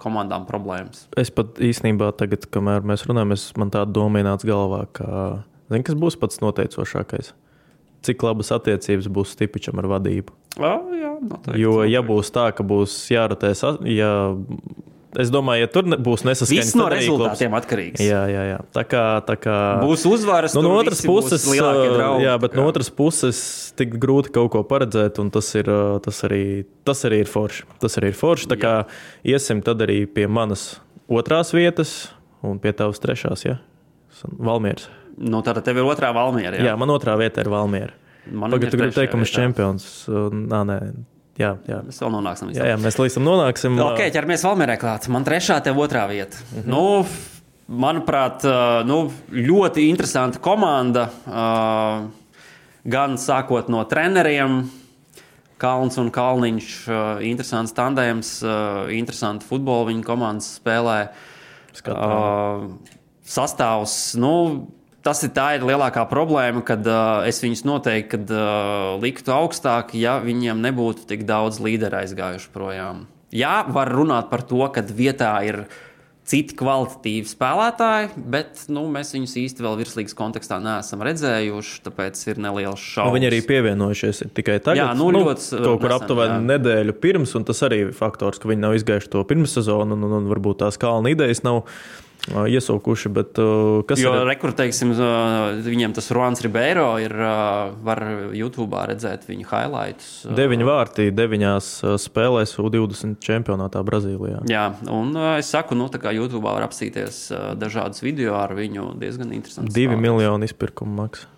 komandām problēmas. Es pat īstenībā tagad, kamēr mēs runājam, man tāda doma ienāca galvā, ka kas būs pats noteicošākais? Cik labas attiecības būs Stipičam ar vadību? Jā, noteikti. Jo, ja būs tā, ka būs jārotēs, es domāju, ja tur būs nesaskaņas, viss no rezultātiem atkarīgs. Jā. Tā kā būs uzvaras, no otras puses, būs lielākie draugi. Jā, bet no otras puses tik grūti kaut ko paredzēt, un tas arī ir forši. Tas arī ir forši, tā kā iesim tad arī pie manas otrās vietas un pie tavas trešās, ja? Valmieras. Tātad tev ir otrā Valmiera, jā? Jā, man otrā vieta ir Valmiera. Pagad, tu gribi teikt, ka mēs čempions. Nē. Jā. Mēs vēl nonāksim. Jā, mēs līdz tam nonāksim. Ok, ķeramies Valmierai klāt. Man trešā, tev otrā vieta. Manuprāt, ļoti interesanta komanda. Gan sākot no treneriem, Kalns un Kalniņš, interesants tandēms, interesanti futbolu viņa komandas spēlē. Sastāvs, tā ir lielākā problēma, kad es viņus noteikti liktu augstāk, ja viņiem nebūtu tik daudz līderu aizgājuši projām. Jā, var runāt par to, ka vietā ir citi kvalitatīvi spēlētāji, bet mēs viņus īsti vēl virslīgas kontekstā neesam redzējuši, tāpēc ir nelielas šaubas. Viņi arī pievienojušies tikai tagad. Jā, ļoti kaut kur aptuveni nedēļu pirms, un tas arī ir faktors, ka viņi nav izgājuši to pirmssezonu, un varbūt tās Kalna idejas nav iesaukuši, bet kas jo, teiksim, viņiem tas Ruans Ribeiro ir, var YouTube'ā redzēt viņu highlights. 9 vārti 9 spēlēs U20 čempionātā Brazīlijā. Jā, un es saku, tā kā YouTube'ā var apsīties dažādas video ar viņu diezgan interesants. 2 miljoni izpirkuma maksa,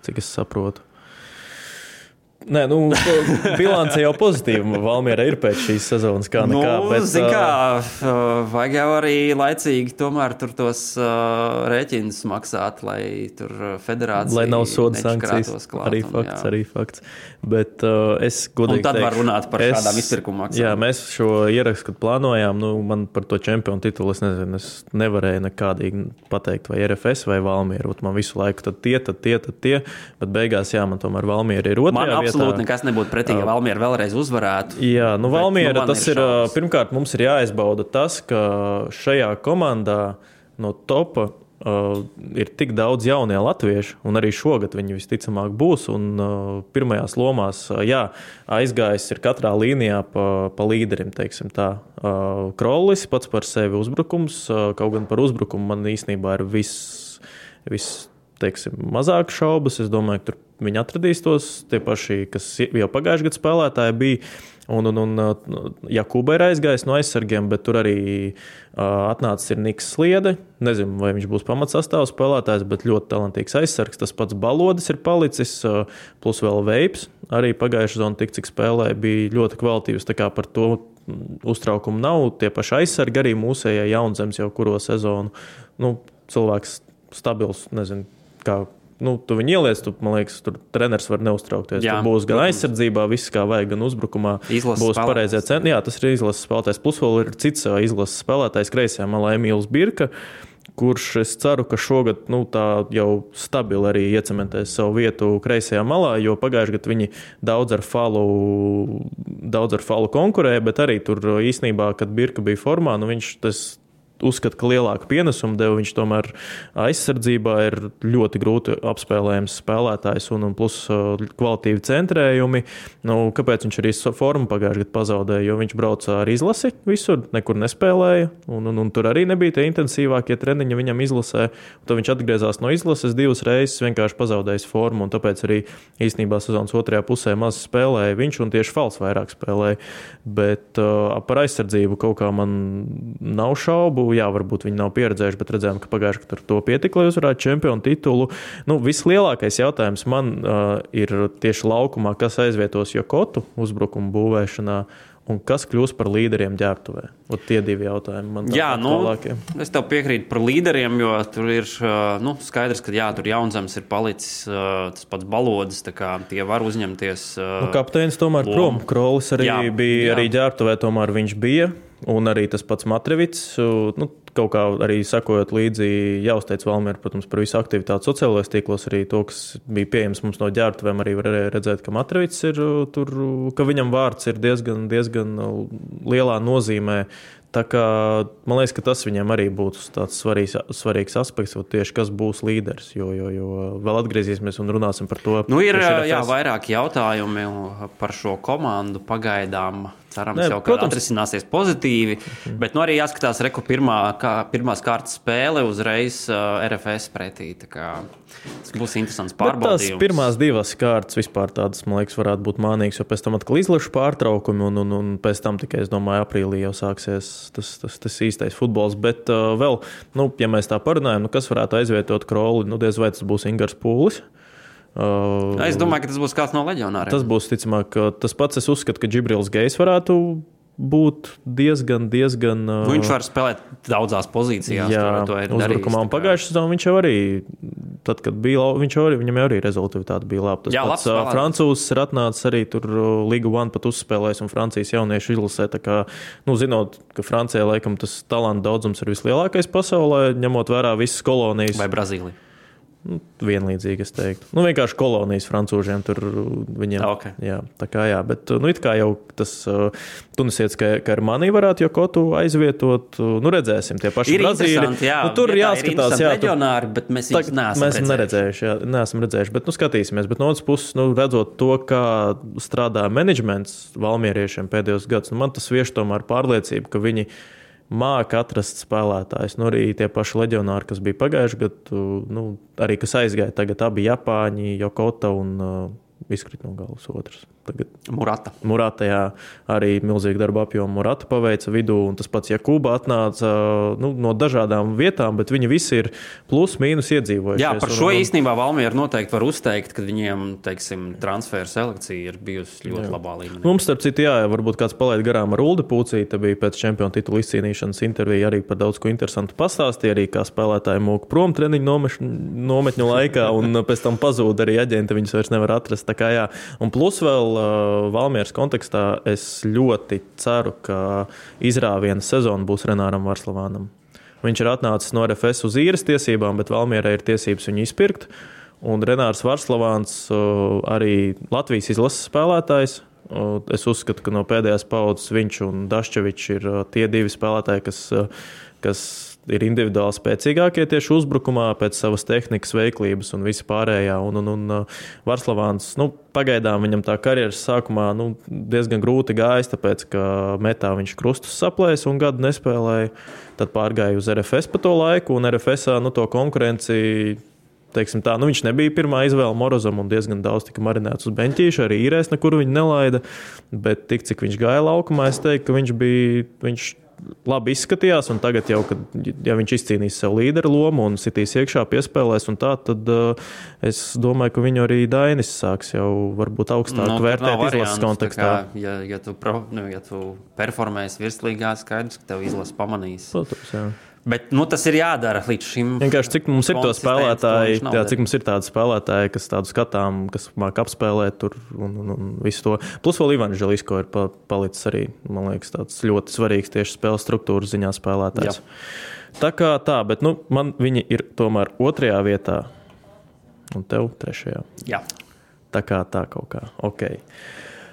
cik es saprotu. Nē, bilance jau pozitīva. Valmiera ir pēc šīs sezonas kā nekā. Vajag jau arī laicīgi tomēr tur tos rēķinus maksāt, lai tur federācija lai nav soda sankcijas. Klāt, arī fakts. Bet es godīgi un tad var runāt par šādām izpirkuma maksām. Jā, mēs šo ierakstu, kad plānojām, man par to čempionu titulu, es nevarēju nekādīgi pateikt, vai RFS vai Valmiera. Man visu laiku tad tie, bet beigās, man tomēr Valmiera ir otrajā vietā. Absolūti nekas nebūtu pretī, ja Valmiera vēlreiz uzvarētu. Jā, Valmiera, tas ir, pirmkārt, mums ir jāizbauda tas, ka šajā komandā no topa ir tik daudz jaunie latvieši, un arī šogad viņi visticamāk būs, un pirmajās lomās, aizgājis ir katrā līnijā pa līderim, teiksim tā. Krollis pats par sevi uzbrukums, kaut gan par uzbrukumu man īstenībā ir viss teiksim, mazāk šaubas. Es domāju, ka tur viņi atradīs tos tie paši, kas jau pagājušajā gadā spēlētāji bija. Un Jakuba ir aizgājis no aizsargiem, bet tur arī atnācis ir Niks Sliede. Nezinu, vai viņš būs pamatsastāvs spēlētājs, bet ļoti talantīgs aizsargs. Tas pats Balodis ir palicis, plus vēl Veips. Arī pagājušajā sezonā tik cik spēlēja, bija ļoti kvalitīvs. Tā kā par to uztraukumu nav. Tie paši aizsargi arī mūsējie Jaunzems jau kuro sezonu. Cilvēks stabils, nezinu, kā. Tu viņu ieliec, man liekas, tur treneris var neuztraukties. Jā, tur būs gan aizsardzībā, viss kā vajag, gan uzbrukumā. Būs pareizie centri. Jā, tas ir izlases spēlētājs. Plus vēl ir cits izlases spēlētājs kreisajā malā Emīls Birka, kurš es ceru, ka šogad tā jau stabili arī iecementēs savu vietu kreisajā malā, jo pagājušajā gadā viņi daudz ar falu konkurēja, bet arī tur īstenībā, kad Birka bija formā, viņš tas uzskata, ka lielāku pienesumu deva. Viņš tomēr aizsardzībā ir ļoti grūti apspēlējams spēlētājs un plus kvalitīvi centrējumi. Kāpēc viņš arī formu pagājušajā gadā pazaudēja? Jo viņš brauca ar izlasi visur, nekur nespēlēja. Un tur arī nebija tie intensīvākie treniņi viņam izlasē. Tad viņš atgriezās no izlases 2 reizes, vienkārši pazaudējis formu. Un tāpēc arī īstenībā sezonas otrajā pusē maz spēlēja viņš un tieši Fals vairāk spēlēja. Bet par aizsardzību kaut kā man nav šaubu. Jā, varbūt viņi nav pieredzējuši, bet redzējām, ka pagājušajā gadā to pietika, lai uzvarētu čempionu titulu. Vislielākais jautājums man ir tieši laukumā, kas aizvietos Jokotu uzbrukumu būvēšanā un kas kļūs par līderiem ģērbtuvē. Tie 2 jautājumi man tālākie. Es tev piekrītu par līderiem, jo tur ir skaidrs, ka tur Jaunzems ir palicis, tas pats Balodis, tā kā tie var uzņemties. Kapteinis tomēr prom, Krollis arī bija, arī ģērbtuvē tomēr viņš bija. Un arī tas pats Matrevits, kaut kā arī sakojot līdzi, jāuzteic Valmiera, protams, par visu aktivitāti sociālajos tīklos, arī to, kas bija pieejams mums no ģērbtuvēm, arī var redzēt, ka Matrevits ir tur, ka viņam vārds ir diezgan lielā nozīmē. Tā kā, man liekas, ka tas viņiem arī būtu tāds svarīgs aspekts, tieši kas būs līderis, jo vēl atgriezīsimies un runāsim par to. Ir vairāk jautājumi par šo komandu pagaidām. Cerams, atrisināsies pozitīvi, bet arī jāskatās pirmās kārtas spēle uzreiz RFS pretī. Tas būs interesants pārbaudījums. Tās pirmās 2 kārtas vispār tādas, man liekas, varētu būt mānīgas, jo pēc tam atkal izlašu pārtraukumi un pēc tam tikai, es domāju, aprīlī jau sāksies tas īstais futbols. Bet vēl, ja mēs tā parunājam, kas varētu aizvietot Krolli, diez vai tas būs Ingars Pūlis. Es domāju, ka tas būs kāds no leģionāriem. Tas būs, ticamāk, tas pats. Es uzskatu, ka Džibrils Gejs varētu būt diezgan. Viņš var spēlēt daudzās pozīcijās. Jā, uzbrukumā. Un pagājušajā sezonā viņš jau arī, tad, kad bija, viņam jau arī rezultāti bija labi. Tas pats francūzs ir atnācis arī tur Liga 1 pat uzspēlējis un Francijas jauniešu izlasē. Tā kā, zinot, ka Francijā laikam tas talantu daudzums ir vislielākais pasaulē, ņemot vērā visas kolonijas. Vai Brazīlija? Vienlīdzīgi, es teiktu. Vienkārši kolonijas francūžiem tur viņiem. Okay. Jā, tā kā jā, bet it kā jau tas tunisietis, ka ar mani varētu Jokotu aizvietot. Redzēsim, tie paši Brazīļi. Tur jāskatās, leģionāri, bet mēs neesam redzējuši. Bet skatīsimies. Bet no otras puses, redzot to, kā strādā menedžments valmieriešiem pēdējos gadus, man tas vieš tomēr pārliecību, ka viņi māca atrast spēlētājus. Arī tie paši leģionāri, kas bija pagājuši gadu, arī kas aizgāja tagad abi Japāņi, Jokota un izkrita no galvas otrs. Tagad Murata, jā, arī milzīgi darba apjomu Murata paveica vidū, un tas pats Jakuba atnāca no dažādām vietām, bet viņi visi ir plus mīnus iedzīvojušies. Jā, par šo īstenībā Valmiera noteikti var uzteikt, ka viņiem, teiksim, transferu selekcija ir bijusi ļoti labā līmenī. Mums, starp citu, jā, varbūt kāds palaid garām ar Uldi Pucīti, bija pēc čempionu titula izcīnīšanas intervija arī par daudz ko interesantu pastāstīja, arī kā spēlētāji mūka prom treniņu nometņu laikā, un pēc tam pazūd arī aģenti, viņus vairs nevar atrast. Tā kā jā, un plus vēl Valmieras kontekstā es ļoti ceru, ka izrāviena sezona būs Renāram Varslavānam. Viņš ir atnācis no RFS uz īres tiesībām, bet Valmierai ir tiesības viņu izpirkt. Un Renārs Varslavāns arī Latvijas izlases spēlētājs. Es uzskatu, ka no pēdējās paudzes viņš un Daščevičs ir tie divi spēlētāji, kas ir individuāli spēcīgākie tieši uzbrukumā pēc savas tehnikas, veiklības un visi pārējā. Un Varslavāns, pagaidām viņam tā karjeras sākumā diezgan grūti gājis, tāpēc, ka metā viņš krustus saplēs un gadu nespēlēja. Tad pārgāja uz RFS pa to laiku, un RFSā to konkurenci, teiksim tā, viņš nebija pirmā izvēle Morozam un diezgan daudz tika marinēts uz beņķīša, arī īrēs nekur viņu nelaida, bet tik, cik viņš gāja laukumā, es teiktu, ka viņš labi izskatījās, un tagad jau, ja viņš izcīnīs sev līderu lomu un sitīs iekšā piespēlēs un tā, tad es domāju, ka viņu arī Dainis sāks jau varbūt augstāk vērtēt izlases kontekstā. Ja tu performēsi virslīgā, skaidrs, ka tev izlase pamanīs. Protams, jā. Bet tas ir jādara līdz šim. Vienkārši cik mums ir to spēlētāji, cik mums ir tādi spēlētāji, kas tādu skatām, kas māk apspēlēt tur un visu to. Plus vēl Ivans Želisko ir palicis arī, man liekas, tāds ļoti svarīgs tieši spēles struktūras ziņā spēlētājs. Jā. Tā kā tā, bet man viņi ir tomēr 2. vietā un tev 3. Jā. Tā kā tā kaut kā. Ok.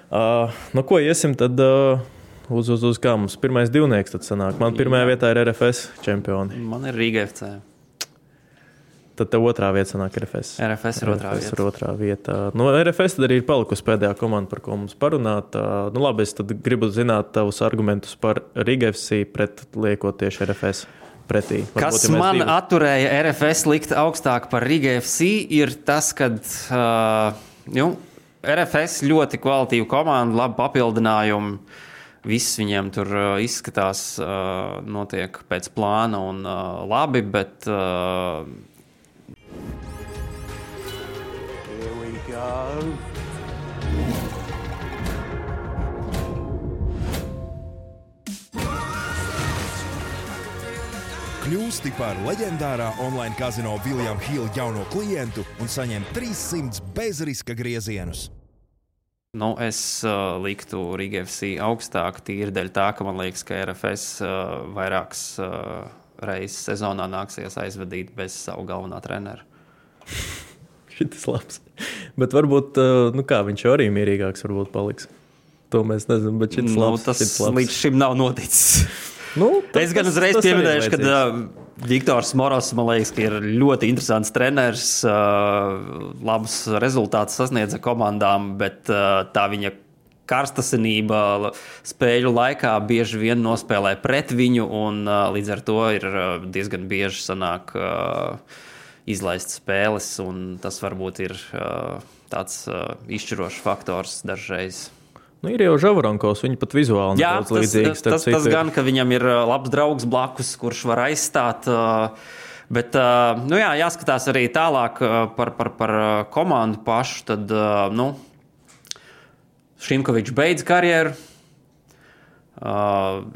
Ko iesim tad... Uz kā mums pirmais divnieks tad sanāk. Man 1. vietā ir RFS čempioni. Man ir Rīga FC. Tad tev 2. vieta sanāk RFS. RFS ir 2. vietā. RFS tad arī ir palikusi pēdējā komanda, par ko mums parunāt. Labi, es tad gribu zināt tavus argumentus par Rīga FC pret liekot tieši RFS pretī. Kas man atturēja RFS likt augstāk par Rīga FC ir tas, kad RFS ļoti kvalitīva komanda, labi papildinājumi. Viss viņiem tur izskatās, notiek pēc plāna un labi, bet... Here we go. Kļūsti par leģendārā online kazino William Hill jauno klientu un saņem 300 bezriska griezienus. Es liktu Rīga FC augstāk tīri dēļ tā, ka man liekas, ka RFS vairākas reizes sezonā nāksies aizvadīt bez savu galvenā trenera. Šitas labs. Bet varbūt, viņš arī mierīgāks varbūt paliks. To mēs nezinām, bet šitas labs. Tas līdz šim nav noticis. Es gan uzreiz pieminēšu, ka Viktors Moros, man liekas, ka ir ļoti interesants treneris, labus rezultātus sasniedza komandām, bet tā viņa karstasinība spēļu laikā bieži vien nospēlē pret viņu, un līdz ar to ir diezgan bieži sanāk izlaist spēles, un tas varbūt ir tāds izšķirošs faktors dažreiz. Ir jau Žavaronkos, viņi pat vizuāli nedaudz līdzīgs. Tas gan, ka viņam ir labs draugs blakus, kurš var aizstāt, bet, jāskatās arī tālāk par komandu pašu, tad, Šimkovičs beidz karjeru.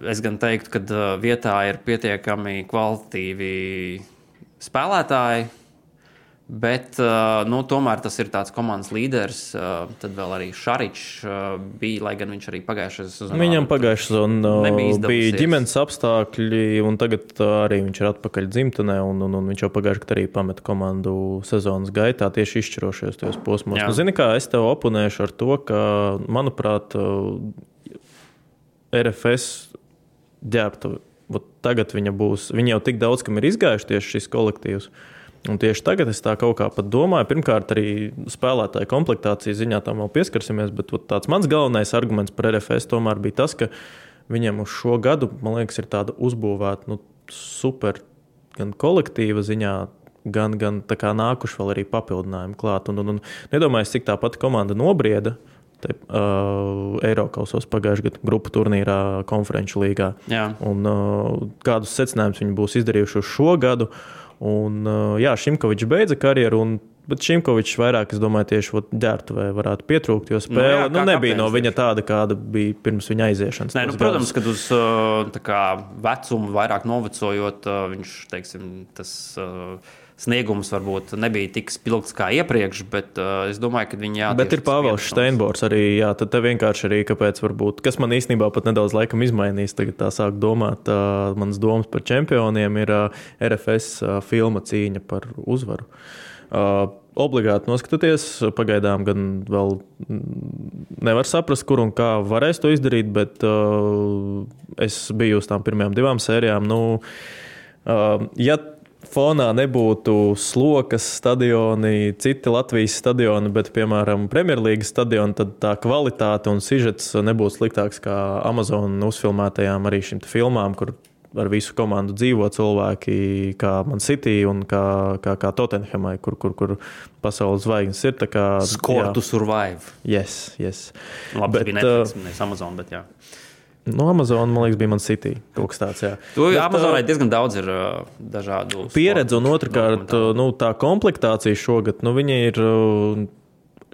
Es gan teiktu, ka vietā ir pietiekami kvalitatīvi spēlētāji, bet tomēr tas ir tāds komandas līderis. Tad vēl arī Šaričs bija, lai gan viņš arī pagājušajā sezonā. Viņam pagājušajā sezonā bija ģimenes apstākļi, un tagad arī viņš ir atpakaļ dzimtenē, un viņš jau pagājušajā gadā arī pameta komandu sezonas gaitā tieši izšķirošajos tajos posmos. Zini kā, es tev oponēšu ar to, ka, manuprāt, RFS ģērbta, tagad viņa jau tik daudz, kam ir izgājuši tieši šis kolektīvs. Un tieši tagad es tā kaut kā pat domāju, pirmkārt arī spēlētāju komplektācijas ziņā tam vēl pieskarsimies, bet tāds mans galvenais arguments par RFS tomēr bija tas, ka viņam uz šo gadu, man liekas, ir tāda uzbūvēta super gan kolektīva ziņā, gan tā kā nākuši vēl arī papildinājumi klāt. Un nedomāju, cik tā pati komanda nobrieda Eirokausos pagājušajā gadu grupu turnīrā konferenču līgā. Jā. Un kādus secinājumus viņi būs izdarījuši uz šo gadu. Un Šimkovičs beidza karjeru, bet Šimkovičs vairāk, es domāju, tieši ģērbtuvē varētu pietrūkt, jo spēle nebija no viņa tāda, kāda bija pirms viņa aiziešanas. Protams, kad uz vecumu vairāk novecojot, viņš, teiksim, tas sniegums varbūt nebija tik spilgts kā iepriekš, bet es domāju, ka viņi Bet ir Pāvils Steinbors arī, tad te vienkārši arī, kāpēc varbūt, kas man īstenībā pat nedaudz laikam izmainīs, tagad tā sāk domāt, manas domas par čempioniem ir RFS filma cīņa par uzvaru. Obligāti noskatoties, pagaidām gan vēl nevar saprast, kur un kā varēs to izdarīt, bet es biju uz tām pirmajām 2 sērijām. Ja fonā nebūtu Slokas stadioni, citi Latvijas stadioni, bet, piemēram, Premjerlīgas stadioni, tad tā kvalitāte un sižets nebūtu sliktāks kā Amazon uzfilmētajām arī šīm filmām, kur ar visu komandu dzīvo cilvēki, kā Man City un kā Tottenhamai, kur pasaules zvaigznes ir. Score to survive. Yes. Labi, bet, bija Netflix, nevis Amazon, bet jā. Amazon, man liekas, bija Man City. Kaut kas tāds, jā. Amazonai diezgan daudz ir dažādu pieredze, un otrkārt, tā komplektācija šogad, viņa ir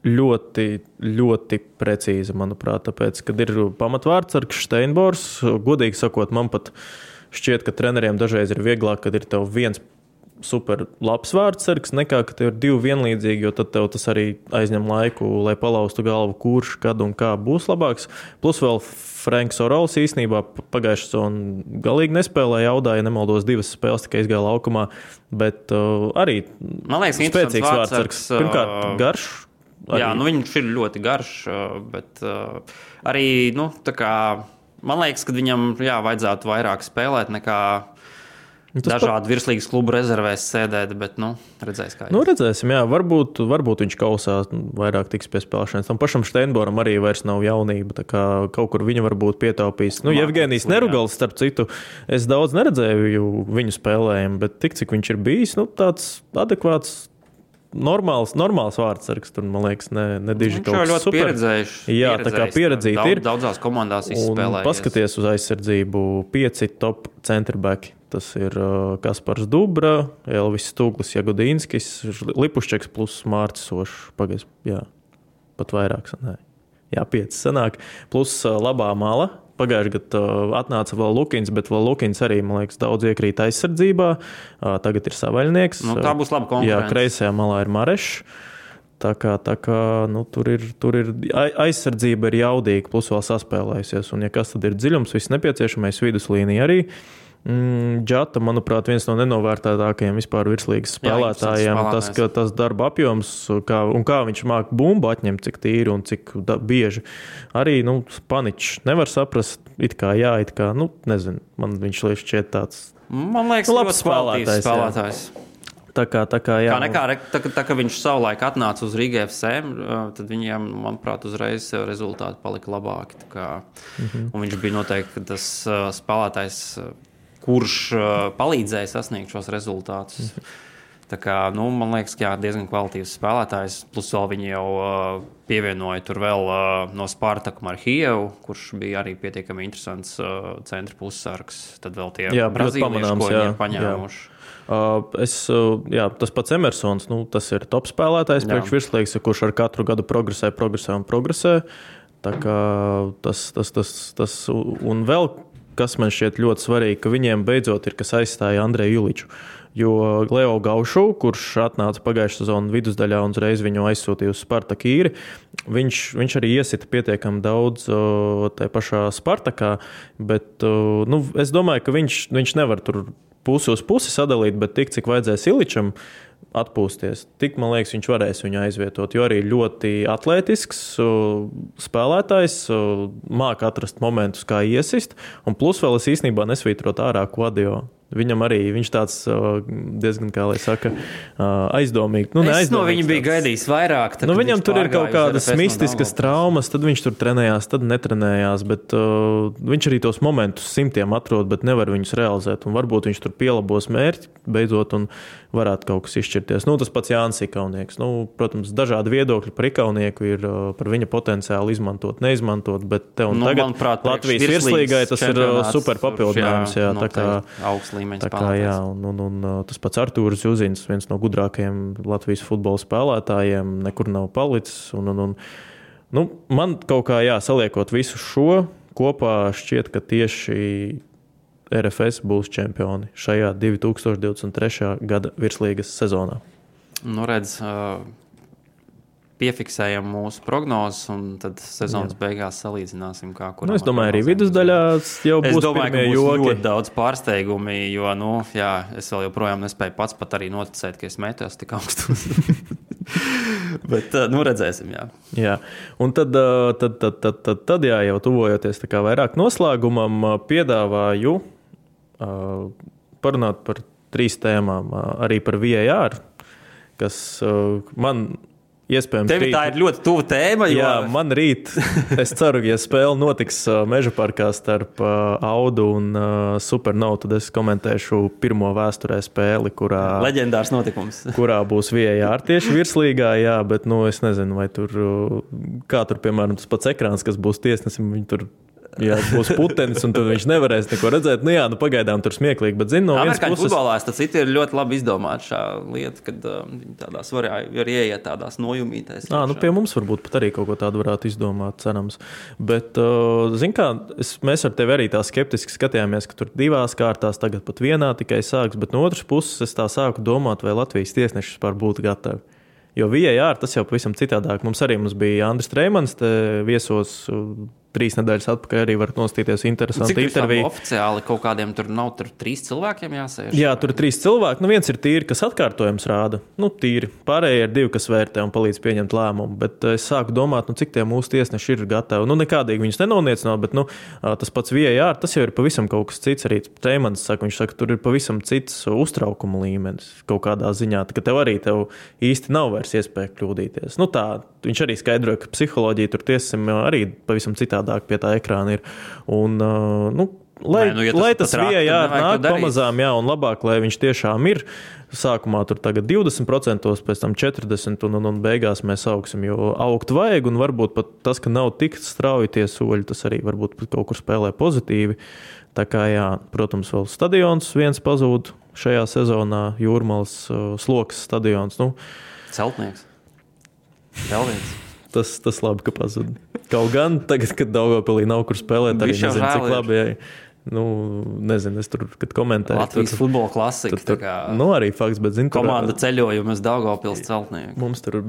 ļoti, ļoti precīza, manuprāt, tāpēc, kad ir pamatvārdsargs Steinbors, godīgi sakot, man pat šķiet, ka treneriem dažreiz ir vieglāk, kad ir tev viens super labs vārdsargs, nekā, ka tev ir 2 vienlīdzīgi, jo tad tev tas arī aizņem laiku, lai palaustu galvu, kurš, kad un kā būs labāks. Plus vēl Franks Orols īstenībā pagājušajā sezonā galīgi nespēlēja, jaudāja, nemaldos 2 spēles, tikai izgāja laukumā, bet arī man liekas, spēcīgs vārdsargs. Pirmkārt, garš. Arī. Jā, viņš ir ļoti garš, bet arī, man liekas, ka viņam vajadzētu vairāk spēlēt nekā dažādi virslīgas klubu rezervēs sēdēt, bet, redzēs kā. Redzēsim, jā, varbūt viņš kausā vairāk tiks pie spēlēšanas. Tam pašam Steinboram arī vairs nav jaunība, tā kā kaut kur viņa varbūt pietaupīs. Jevgenijs Nerugals, starp citu, es daudz neredzēju viņu spēlējumu, bet tik, cik viņš ir bijis, tāds adekvāts, normāls vārdsargs, tur, man liekas, nediži kaut kas super. Pieredzējuši. Jā, tā kā pieredzīti ir. Daudzās komandās izspēlējies. Paskaties uz aizsardzību 5 top centerbacki. Tas ir Kaspars Dubra, Elvis Stūglis, Jagodīnskis, Lipušķeks plus Mārcis Sošs. Pagaids, jā, pat vairāk sanāk. Jā, 5 sanāk. Plus labā mala. Pagājušajā gadā atnāca vēl Lukins, bet vēl Lukins arī, man liekas, daudz iekrīt aizsardzībā. Tagad ir Savaļnieks. Tā būs laba konkurence. Jā, kreisajā malā ir Marešs. Tā kā tur ir aizsardzība ir jaudīga, plus vēl saspēlējusies. Un ja kas tad ir dziļums, viss nepieciešamais viduslīnija arī. Džata, manuprāt, viens no nenovērtētākajiem vispār virslīgas spēlētājiem. Tas darba apjoms, kā viņš māk bumbu atņemt, cik tīri un cik bieži. Arī, Paničs nevar saprast, it kā, nezinu, man viņš šķiet tāds. Man liekas, labs spēlētājs. Tā kā, jā. Tā kā viņš savulaik atnāca uz Rīga FC, tad viņiem, manuprāt, uzreiz rezultāti palika labāki. Un viņš bija noteikti tas spēlētājs, kurš palīdzēja sasniegt šos rezultātus. Tā kā, man liekas, ka diezgan kvalitīvs spēlētājs. Plus vēl viņi jau pievienoja tur vēl no Spartaku Marhievu, kurš bija arī pietiekami interesants centra pussargs. Tad vēl tie brazīlieši, ko viņi ir paņēmuši. Tas pats Emersons, tas ir top spēlētājs priekš virslīgas, kurš ar katru gadu progresē. Tā kā tas un vēl, kas man šķiet ļoti svarīgi, ka viņiem beidzot ir, kas aizstāja Andreju Juliču. Jo Leo Gaušu, kurš atnāca pagājušā sezona vidusdaļā un uzreiz viņu aizsūtīja uz Spartaku īri, viņš arī iesita pietiekami daudz tajā pašā Spartakā, bet es domāju, ka viņš nevar tur pusi uz pusi sadalīt, bet tik, cik vajadzēs Iličam atpūsties, tik, man liekas, viņš varēs viņu aizvietot, jo arī ļoti atlētisks spēlētājs, māk atrast momentus, kā iesist, un plus vēl es īstenībā nesvītrot ārā Kvadio. Viņam arī viņš tāds diezgan, kā lai saka, aizdomīgi. Es no viņa biju gaidījis vairāk. Tad, viņam tur ir kaut kādas mistiskas traumas, tad viņš tur trenējās, tad netrenējās, bet viņš arī tos momentus simtiem atrod, bet nevar viņus realizēt. Un varbūt viņš tur pielabos mērķi beidzot un varētu kaut kas izšķirties. Tas pats Jānis Ikaunieks. Protams, dažādi viedokļi par Ikaunieku ir par viņa potenciālu izmantot, neizmantot, bet te un tagad manuprāt, Latvijas virslīgai tas ir super papildinājums. Jā, tā kā augsts līmeņa spēlētājs. Jā, un tas pats Artūrs Juzins, viens no gudrākajiem Latvijas futbola spēlētājiem, nekur nav palicis. Man kaut kā saliekot visu šo kopā šķiet, ka tieši RFS būs čempioni šajā 2023. gada virslīgas sezonā. Redz, piefiksējam mūsu prognozes un tad sezonas beigās salīdzināsim, kā kuram. Es domāju, arī vidusdaļā jau būs pirmie joki. Es domāju, ka būs ļoti daudz pārsteigumi, jo, es vēl joprojām nespēju pats pat arī noticēt, ka es metos tik augstus. Bet, redzēsim, jā. Un tad jau tuvojoties tā kā vairāk noslēgumam, piedāvāju parunāt par 3 tēmām, arī par VAR, kas man iespējams... Tev tā ir ļoti tuva tēma, jo... Jā, man rīt, es ceru, ja spēle notiks Meža parkā starp Audu un Supernovu, tad es komentēšu pirmo vēsturē spēli, kurā... Leģendārs notikums. Kurā būs VAR tieši virslīgā, jā, bet, es nezinu, vai tur... Kā tur, piemēram, tas pats ekrāns, kas būs tiesnesim, viņi tur... Jā, būs putenis, un tad viņš nevarēs neko redzēt. Pagaidām tur smieklīgi, bet no vienas puses... Futbolā tas ir ļoti labi izdomāts šā lieta, kad viņi tādās var ieiet tādās nojumītēs. Pie mums varbūt pat arī kaut ko tādu varētu izdomāt, cerams. Bet, mēs ar tevi arī tā skeptiski skatījāmies, ka tur 2 kārtās, tagad pat 1 tikai sāks, bet no otras puses es tā sāku domāt, vai Latvijas tiesneši vispār būtu gatavi. Jo VAR tas jau pavisam citādāk. Mums bija Andris Treimans, te viesos 3 nedēļas atpakaļ arī var nostīties interesanti interviju. Cik oficiāli kaut kādiem tur nav 3 cilvēkiem jāsēž? Jā, tur ir 3 cilvēki. Viens ir tīri, kas atkārtojums rāda. Tīri. Pārējie ir 2, kas vērtē un palīdz pieņemt lēmumu. Bet es sāku domāt, cik tie mūsu tiesneši ir gatavi. Nekādīgi viņus nenoniecinātu, bet tas pats VAR, tas jau ir pavisam kaut kas cits. Arī Treimans saka, viņš saka, tur ir pavisam cits uztraukuma līmenis kaut kādā ziņā. Ka tev īsti nav vairs iespēja kļūdīties. Tā, viņš arī skaidroja, ka psiholoģija tur tiesim arī pavisam citādāk pie tā ekrāna ir. Un, lai tas VAR nāk pamazām, un labāk, lai viņš tiešām ir. Sākumā tur tagad 20%, pēc tam 40% un beigās mēs augsim, jo augt vajag, un varbūt pat tas, ka nav tik strauji tie soļi, tas arī varbūt kaut kur spēlē pozitīvi. Tā kā, protams, vēl stadions viens pazūd šajā sezonā, Jūrmalas Slokas stadions. Celtnieks. Vēl viens. Tas labi, ka pazuda. Kaut gan tagad, kad Daugavpilī nav kur spēlēt, arī nezinu, cik labi. Nezinu, es tur, kad komentēju. Latvijas futbola klasika. Arī fakts, bet zinu, komanda ceļojumus Daugavpils Celtnieku. Mums tur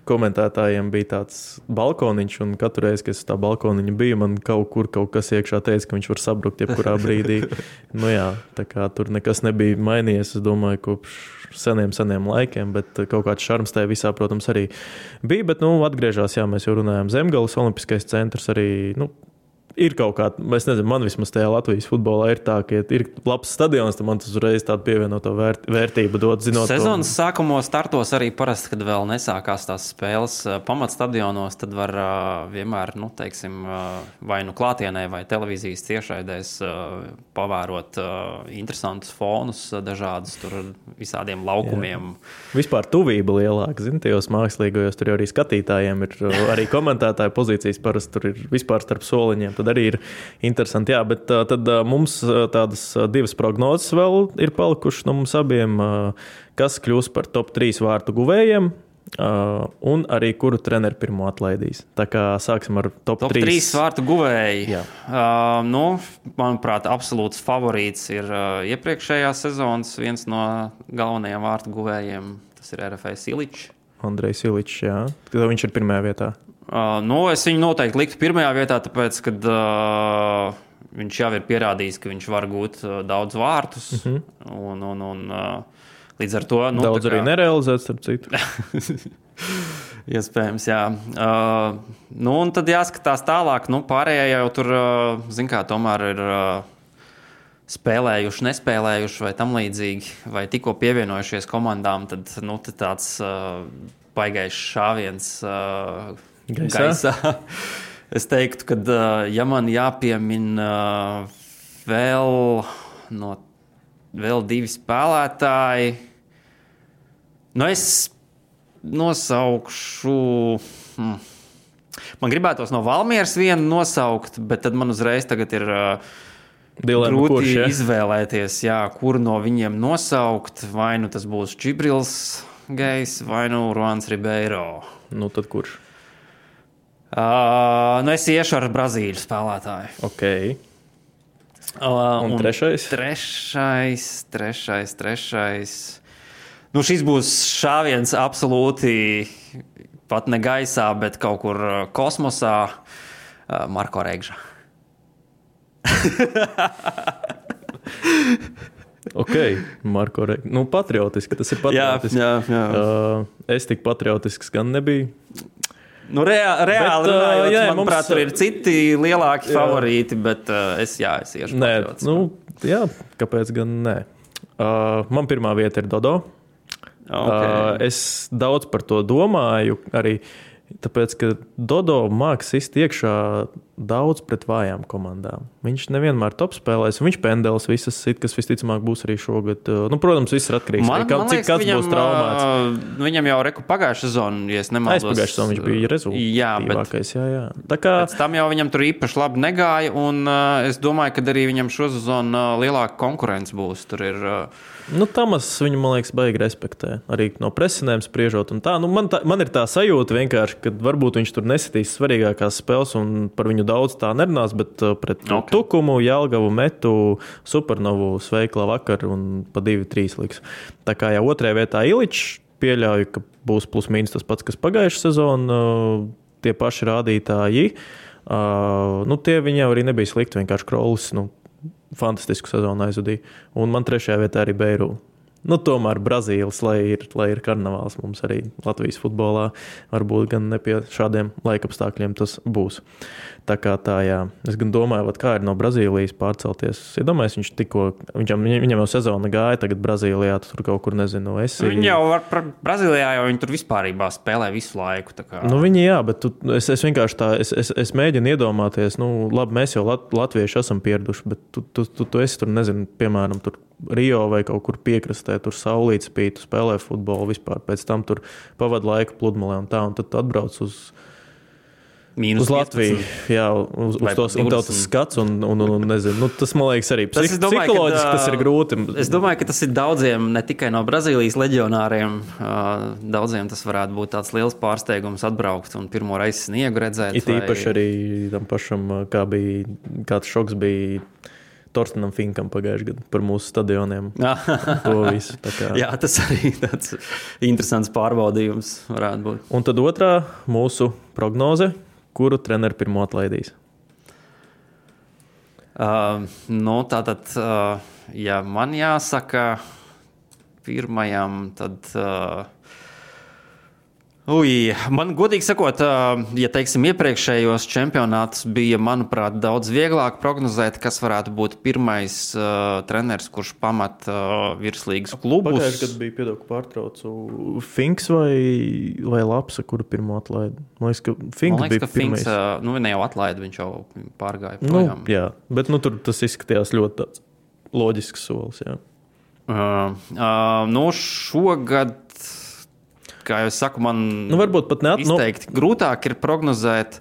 komentētājiem bija tāds balkoniņš, un katru reizi, kad es tā balkoniņa biju, man kaut kas iekšā teica, ka viņš var sabrukt jebkurā brīdī. Tā kā tur nekas nebija mainījies, es domāju, kopš seniem laikiem, bet kaut kāds šarms tajā visā, protams, arī bija. Bet, atgriežās, mēs jau runājām, Zemgales Olimpiskais centrs arī, ir kaut kā, es nezinu, man vismaz tajā Latvijas futbolā ir tā, ka ir labs stadions, tad man tas uzreiz tādu pievienoto vērtību dod, zinot. Sezonas sākumos startos arī parasti, kad vēl nesākās tās spēles pamatstadionos, tad var vienmēr, vai klātienē vai televīzijas tiešraidēs pavērot interesantus fonus dažādus tur visādiem laukumiem. Jā. Vispār tuvība lielāka, tajos mākslīgajos, tur arī skatītājiem ir arī komentētāju pozīcijas, parasti tur ir vispār starp soliņiem, tad arī ir interesanti. Jā, bet tad mums tādas 2 prognozes vēl ir palikušas no mums abiem, kas kļūs par top 3 vārtu guvējiem un arī kuru treneri pirmo atlaidīs. Tā kā sāksim ar top 3. Top 3 vārtu guvēji. Manuprāt, absolūts favorīts ir iepriekšējās sezonas viens no galvenajiem vārtu guvējiem. Tas ir RFS Iličs. Andrejs Iličs, jā. Viņš ir pirmajā vietā. Es viņu noteikti liktu pirmajā vietā, tāpēc, kad viņš jau ir pierādījis, ka viņš var gūt daudz vārtus. Un līdz ar to... Daudz arī nerealizēts, starp citu. Iespējams, jā. Un tad jāskatās tālāk. Pārējie jau tur, tomēr ir spēlējuši, nespēlējuši vai tam līdzīgi, vai tikko pievienojušies komandām, tad tad tāds baigais šāviens gaisā. Es teiktu, ka ja man jāpiemina vēl 2 spēlētāji, es nosaukšu... Man gribētos no Valmieras vienu nosaukt, bet tad man uzreiz tagad ir grūti izvēlēties, kuru no viņiem nosaukt. Vai nu tas būs Čibrils Gejs, vai nu Ruans Ribeiro. Tad kurš? Es iešu ar Brazīļu spēlētāju. Ok. Un trešais? Trešais. Šis būs šāviens absolūti pat ne gaisā, bet kaut kur kosmosā. Marko Regža. Ok, Marko Regža. Patriotiski, tas ir patriotiski. Jā. Es tik patriotisks gan nebiju. Reāli runājot, manuprāt, tur ir citi lielāki favorīti, bet es iešu patriotisku. Kāpēc gan nē? Man pirmā vieta ir Dodo. Okay. Es daudz par to domāju, arī tāpēc, ka Dodo māks sist iekšā daudz pret vājām komandām. Viņš nevienmēr top spēlēs, viņš pendelis visas sit, kas visticamāk būs arī šogad. Protams, viss ir atkarīgs. Cik kāds būs traumāts. Viņam jau pagājušā sezona, ja es nemaldos. Pagājušā sezona viņš bija rezultātīvākais. Jā. Pēc tam jau viņam tur īpaši labi negāja, un es domāju, ka arī viņam šo sezonu lielāka konkurence būs. Tur ir... Tamas viņu, man liekas, baigi respektē. Arī no presinēm spriežot un tā. Man ir tā sajūta vienkārši, ka varbūt viņš tur nesitīs svarīgākās spēles un par viņu daudz tā nerunās, bet pret Tukumu, Jelgavu, Metu, Supernovu sveikla vakar un pa 2-3 liks. Tā kā jau otrajā vietā Iličs, pieļauju, ka būs plus mīnus tas pats, kas pagājušā sezona, tie paši rādītāji. Tie viņi jau arī nebija slikti, vienkārši Krolis, fantastisku sezonu aizvadīja. Un man trešajā vietā arī Beiru. Tomēr Brazīlis, lai ir karnevāls mums arī Latvijas futbolā, varbūt gan ne pie šādiem laikapstākļiem tas būs. Tā kā tā, jā. Es gan domāju, kā ir no Brazīlijas pārcelties. Iedomājies, viņam jau sezona gāja, tagad Brazīlijā, tur kaut kur, nezinu, Viņi jau Brazīlijā jau viņi tur vispārībā spēlē visu laiku. Tā kā... Viņi jā, bet es vienkārši tā, es mēģinu iedomāties, labi, mēs jau latvieši esam pieraduši, bet tu esi tur, nezinu, piemēram, tur Rio vai kaut kur piekrastē, tur saulītes spīd, spēlē futbolu vispār, pēc tam tur pavada laiku pludmalē un tā, un tad atbrauc uz Latviju, jā, uz tos, un tev tas skats, un nezinu, tas, man liekas, arī psiholoģiski tas ir grūti. Es domāju, ka tas ir daudziem, ne tikai no Brazīlijas leģionāriem, daudziem tas varētu būt tāds liels pārsteigums atbraukt un pirmo reizi sniegu redzēt. It īpaši arī tam pašam, kāds šoks bija Torstenam Finkam pagājušajā gadā par mūsu stadioniem. To visu. Jā, tas arī tāds interesants pārbaudījums varētu būt. Un tad otrā mūsu prognoze, kuru treneri pirmo atlaidīs? Tātad, ja man jāsaka pirmajam, tad... Man godīgi sakot, ja teiksim iepriekšējos čempionātus bija, manuprāt, daudz vieglāk prognozēt, kas varētu būt pirmais treneris, kurš pamat virslīgas klubus. Pagājušajā gadā bija, piedod, pārtraucu, Finks vai Lapsa, kuru pirmo atlaida? Man liekas, ka Finks bija pirmais. Ne jau atlaida, viņš jau pārgāja projām. Jā, bet tur tas izskatījās ļoti tāds loģisks solis, jā. Šogad... Kā jau es saku, man varbūt pat izteikti grūtāk ir prognozēt.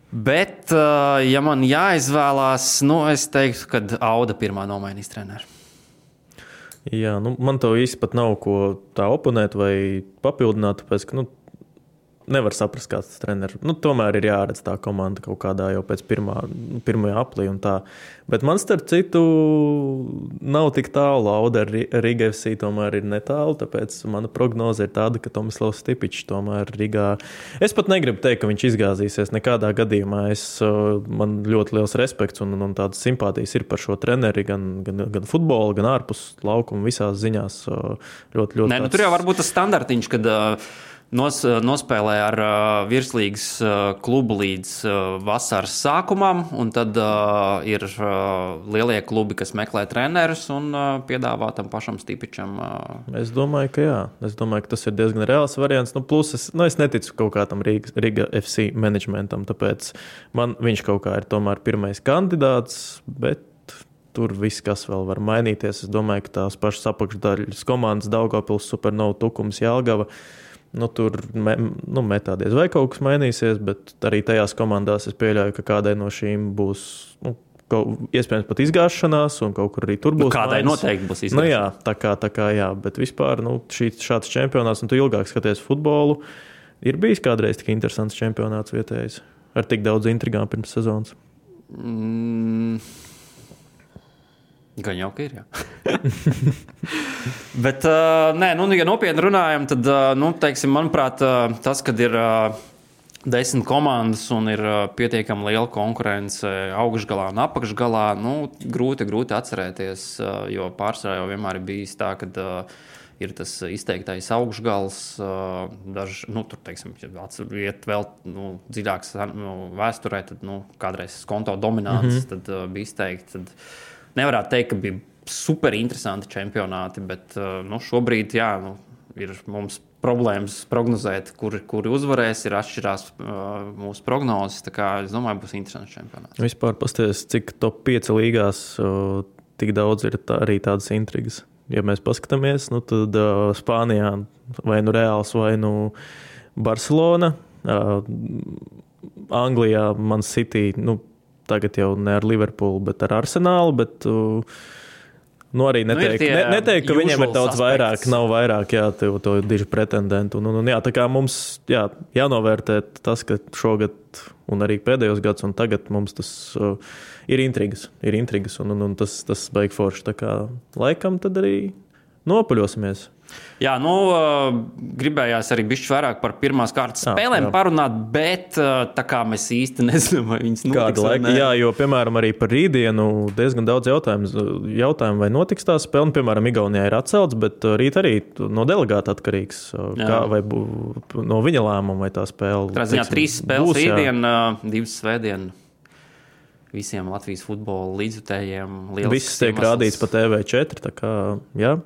Bet, ja man jāizvēlās, es teiktu, ka Auda pirmā nomainīs treneru. Jā, man to īsti pat nav ko tā oponēt vai papildināt, tāpēc, ka, nevar saprast, kāds tas treneris. Tomēr ir jāredz tā komanda kaut kādā jau pēc pirmajā aplī un tā. Bet man starp citu nav tik tālu. Auda ar Riga FC tomēr ir netālu, tāpēc mana prognoze ir tāda, ka Tomislavs Stipičs tomēr Rigā. Es pat negribu teikt, ka viņš izgāzīsies nekādā gadījumā. Man ļoti liels respekts un tādas simpātijas ir par šo treneri, gan futbola, gan ārpus laukuma visās ziņās. Ļoti tur jau varbūt tas standartiņš, kad nospēlē ar virslīgas klubu līdz vasaras sākumam, un tad ir lielie klubi, kas meklē trenerus un piedāvā tam pašam Stipičam. Es domāju, ka jā. Es domāju, ka tas ir diezgan reāls variants. Plus es neticu kaut kādam Riga FC managementam, tāpēc man viņš kaut kā ir tomēr pirmais kandidāts, bet tur viss, kas vēl var mainīties. Es domāju, ka tās pašas apakšdaļas komandas Daugavpils, Supernova, Tukums, Jelgava, tur metādies vai kaut kas mainīsies, bet arī tajās komandās es pieļauju, ka kādai no šīm būs iespējams pat izgāšanās, un kaut kur arī tur būs. Kādai noteikti būs izgāšanās. Jā, tā kā jā, bet vispār šāds čempionāts, un tu ilgāk skaties futbolu, ir bijis kādreiz tik interesants čempionāts vietējais, ar tik daudz intrigām pirms sezonas. Gan jau, ka ir, jā. Bet, nē, ja nopietni runājam, tad, teiksim, manuprāt, tas, kad ir 10 komandas un ir pietiekami liela konkurence augšgalā un apakšgalā, grūti atcerēties, jo pārsvarā jau vienmēr ir bijis tā, kad ir tas izteiktais augšgals, tur, teiksim, iet vēl dziļāks vēsturē, tad, kādreiz Skonto dominants, tad bija izteikti, tad nevarētu teikt, ka bija super interesanti čempionāti, bet šobrīd ir mums problēmas prognozēt, kuri uzvarēs, ir atšķirās mūsu prognozes. Tā kā es domāju, būs interesants čempionāts. Vispār pasties, cik top 5 līgās tik daudz ir arī tādas intrigas. Ja mēs paskatāmies, tad Spānijā vai Reāls vai Barcelona, Anglijā Man City, tagad jau ne ar Liverpoolu, bet ar Arsenālu, bet arī neteikt, ka viņiem ir daudz vairāk, nav vairāk, to diži pretendentu. Tā kā mums jānovērtē tas, ka šogad un arī pēdējos gads un tagad mums tas ir intrigas, un tas baigi forši. Tā kā laikam tad arī nopaļosimies. Jā, gribējās arī bišķi vairāk par pirmās kārtas spēlēm parunāt, bet tā kā mēs īsti nezinām, vai viņas notiks vai ne. Jā, jo, piemēram, arī par rītdienu diezgan daudz jautājumu, vai notiks tā spēle. Piemēram, Igaunijā ir atcelts, bet rīt arī no delegāta atkarīgs, vai no viņa lēmuma, vai tā spēle. Trāziņā 3 spēles rītdien, 2 svētdien. Visiem Latvijas futbola līdzjutējiem. Viss tiek rādīts pa TV4, tā kā, jā.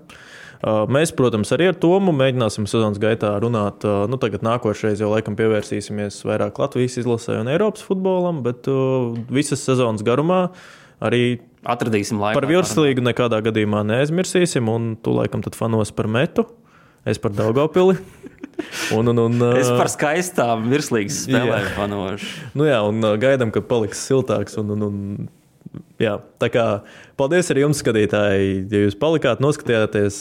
Mēs, protams, arī ar Tomu mēģināsim sezonas gaitā runāt. Tagad nākošreiz jau laikam pievērsīsimies vairāk Latvijas izlasē un Eiropas futbolam, bet visas sezonas garumā arī atradīsim laiku. Par virslīgu nekādā gadījumā neaizmirsīsim, un tu laikam tad fanos par Metu, es par Daugavpili. Es par skaistām virslīgas spēlēm fanošu. Un gaidām, ka paliks siltāks jā, tā kā paldies arī jums, skatītāji, ja jūs palikāt, noskatījāties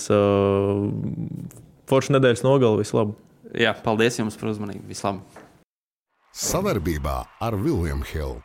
foršu nedēļas nogali, vislabāk. Jā, paldies jums par uzmanību, vislabāk. Savarbībā ar William Hill.